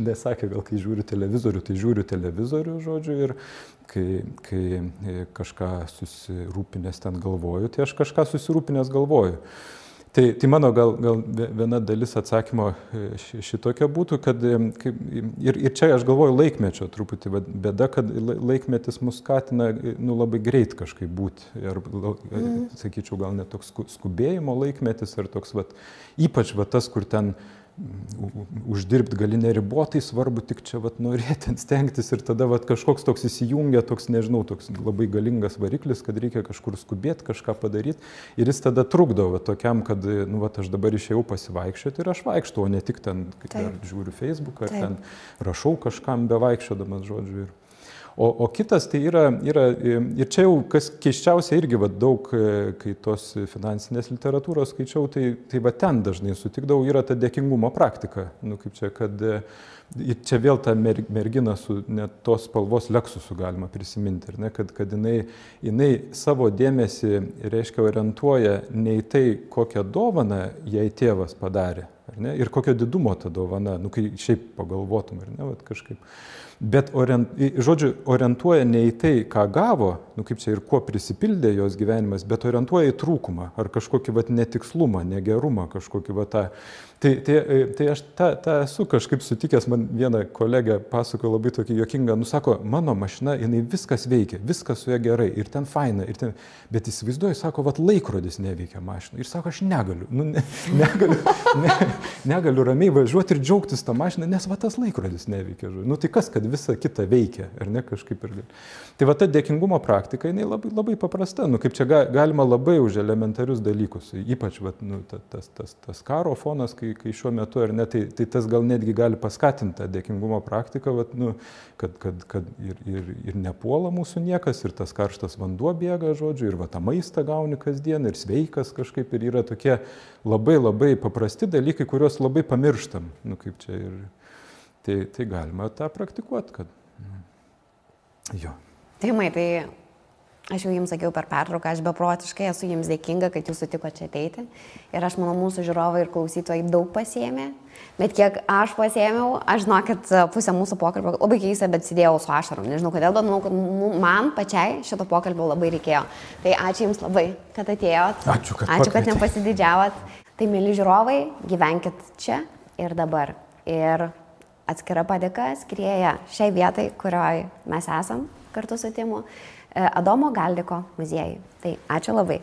nesakė, gal kai žiūriu televizorių, tai žiūriu televizorių, žodžiu, ir kai kažką susirūpinęs ten galvoju, tai aš kažką susirūpinęs galvoju. Tai mano gal viena dalis atsakymo šitokia būtų, kad ir čia aš galvoju laikmečio truputį bėda, kad laikmetis mus skatina labai greit kažkaip būti. Ir, sakyčiau, gal net toks skubėjimo laikmetis ar toks, ypač tas, kur ten uždirbti gali neribotai, svarbu tik čia norėti, stengtis ir tada kažkoks toks įsijungia, toks, nežinau, toks labai galingas variklis, kad reikia kažkur skubėti, kažką padaryti ir jis tada trukdo tokiam, kad, aš dabar išėjau pasivaikščioti ir aš vaikštau, o ne tik ten, ar žiūriu Facebooką, ar ten rašau kažkam bevaikščiodamas, žodžiu. O kitas tai yra, ir čia jau kas keiščiausia irgi daug, kai tos finansinės literatūros skaičiau, tai ten dažnai sutikdavau, yra ta dėkingumo praktika. Kaip čia, kad čia vėl ta mergina su net tos spalvos Lexusu galima prisiminti, ne, kad jinai savo dėmesį, reiškia, orientuoja ne į tai, kokią dovaną jai tėvas padarė, ar ne, ir kokio didumo ta dovana, kai šiaip pagalvotum, ar ne, kažkaip. Bet, žodžiu, orientuoja ne į tai, ką gavo, kaip čia ir kuo prisipildė jos gyvenimas, bet orientuoja į trūkumą ar kažkokį netikslumą, negerumą, kažkokį tą. Tai aš tą esu kažkaip sutikęs, man viena kolegė pasako labai tokį juokingą, sako, mano mašina, jinai viskas veikia, viskas su ja gerai ir ten faina, ir ten, bet įsivaizduoju, sako, vat laikrodis neveikia mašina. Ir sako, aš negaliu, negaliu ramiai važiuoti ir džiaugtis tą mašiną, nes va tas laikrodis neveikia. Tai kas, kad visa kita veikia, ar ne kažkaip ir gali. Tai va ta dėkingumo praktika, jinai labai, labai paprasta, kaip čia galima labai už elementarius dalykus, ypač va, tas karo fonas, kai šiuo metu, ar ne, tai tas gal netgi gali paskatinti tą dėkingumo praktiką, vat, kad ir nepuola mūsų niekas, ir tas karštas vanduo bėga, žodžiu, ir va, tą maistą gauni kasdien, ir sveikas kažkaip, ir yra tokie labai labai paprasti dalykai, kuriuos labai pamirštam. Kaip čia ir tai galima tą praktikuoti, kad jo. Timai, tai aš jau jums sakiau per pertrauką, aš beprotiškai esu jums dėkinga, kad jūs sutiko čia ateiti. Ir aš manau, mūsų žiūrovai ir klausytojai daug pasiėmė. Bet kiek aš pasiėmiau, aš žinau, kad pusę mūsų pokalbio labai keista, bet sėdėjau su ašarom. Nežinau kodėl, bet manau, kad man pačiai šito pokalbio labai reikėjo. Tai ačiū jums labai, kad atėjot. Ačiū, kad nepasididžiavot. Tai, mėly žiūrovai, gyvenkit čia ir dabar. Ir atskira padėka skrieja šiai vietai, kurioje mes esam kartu su Timu. Adomo Galdiko muziejui. Tai ačiū labai.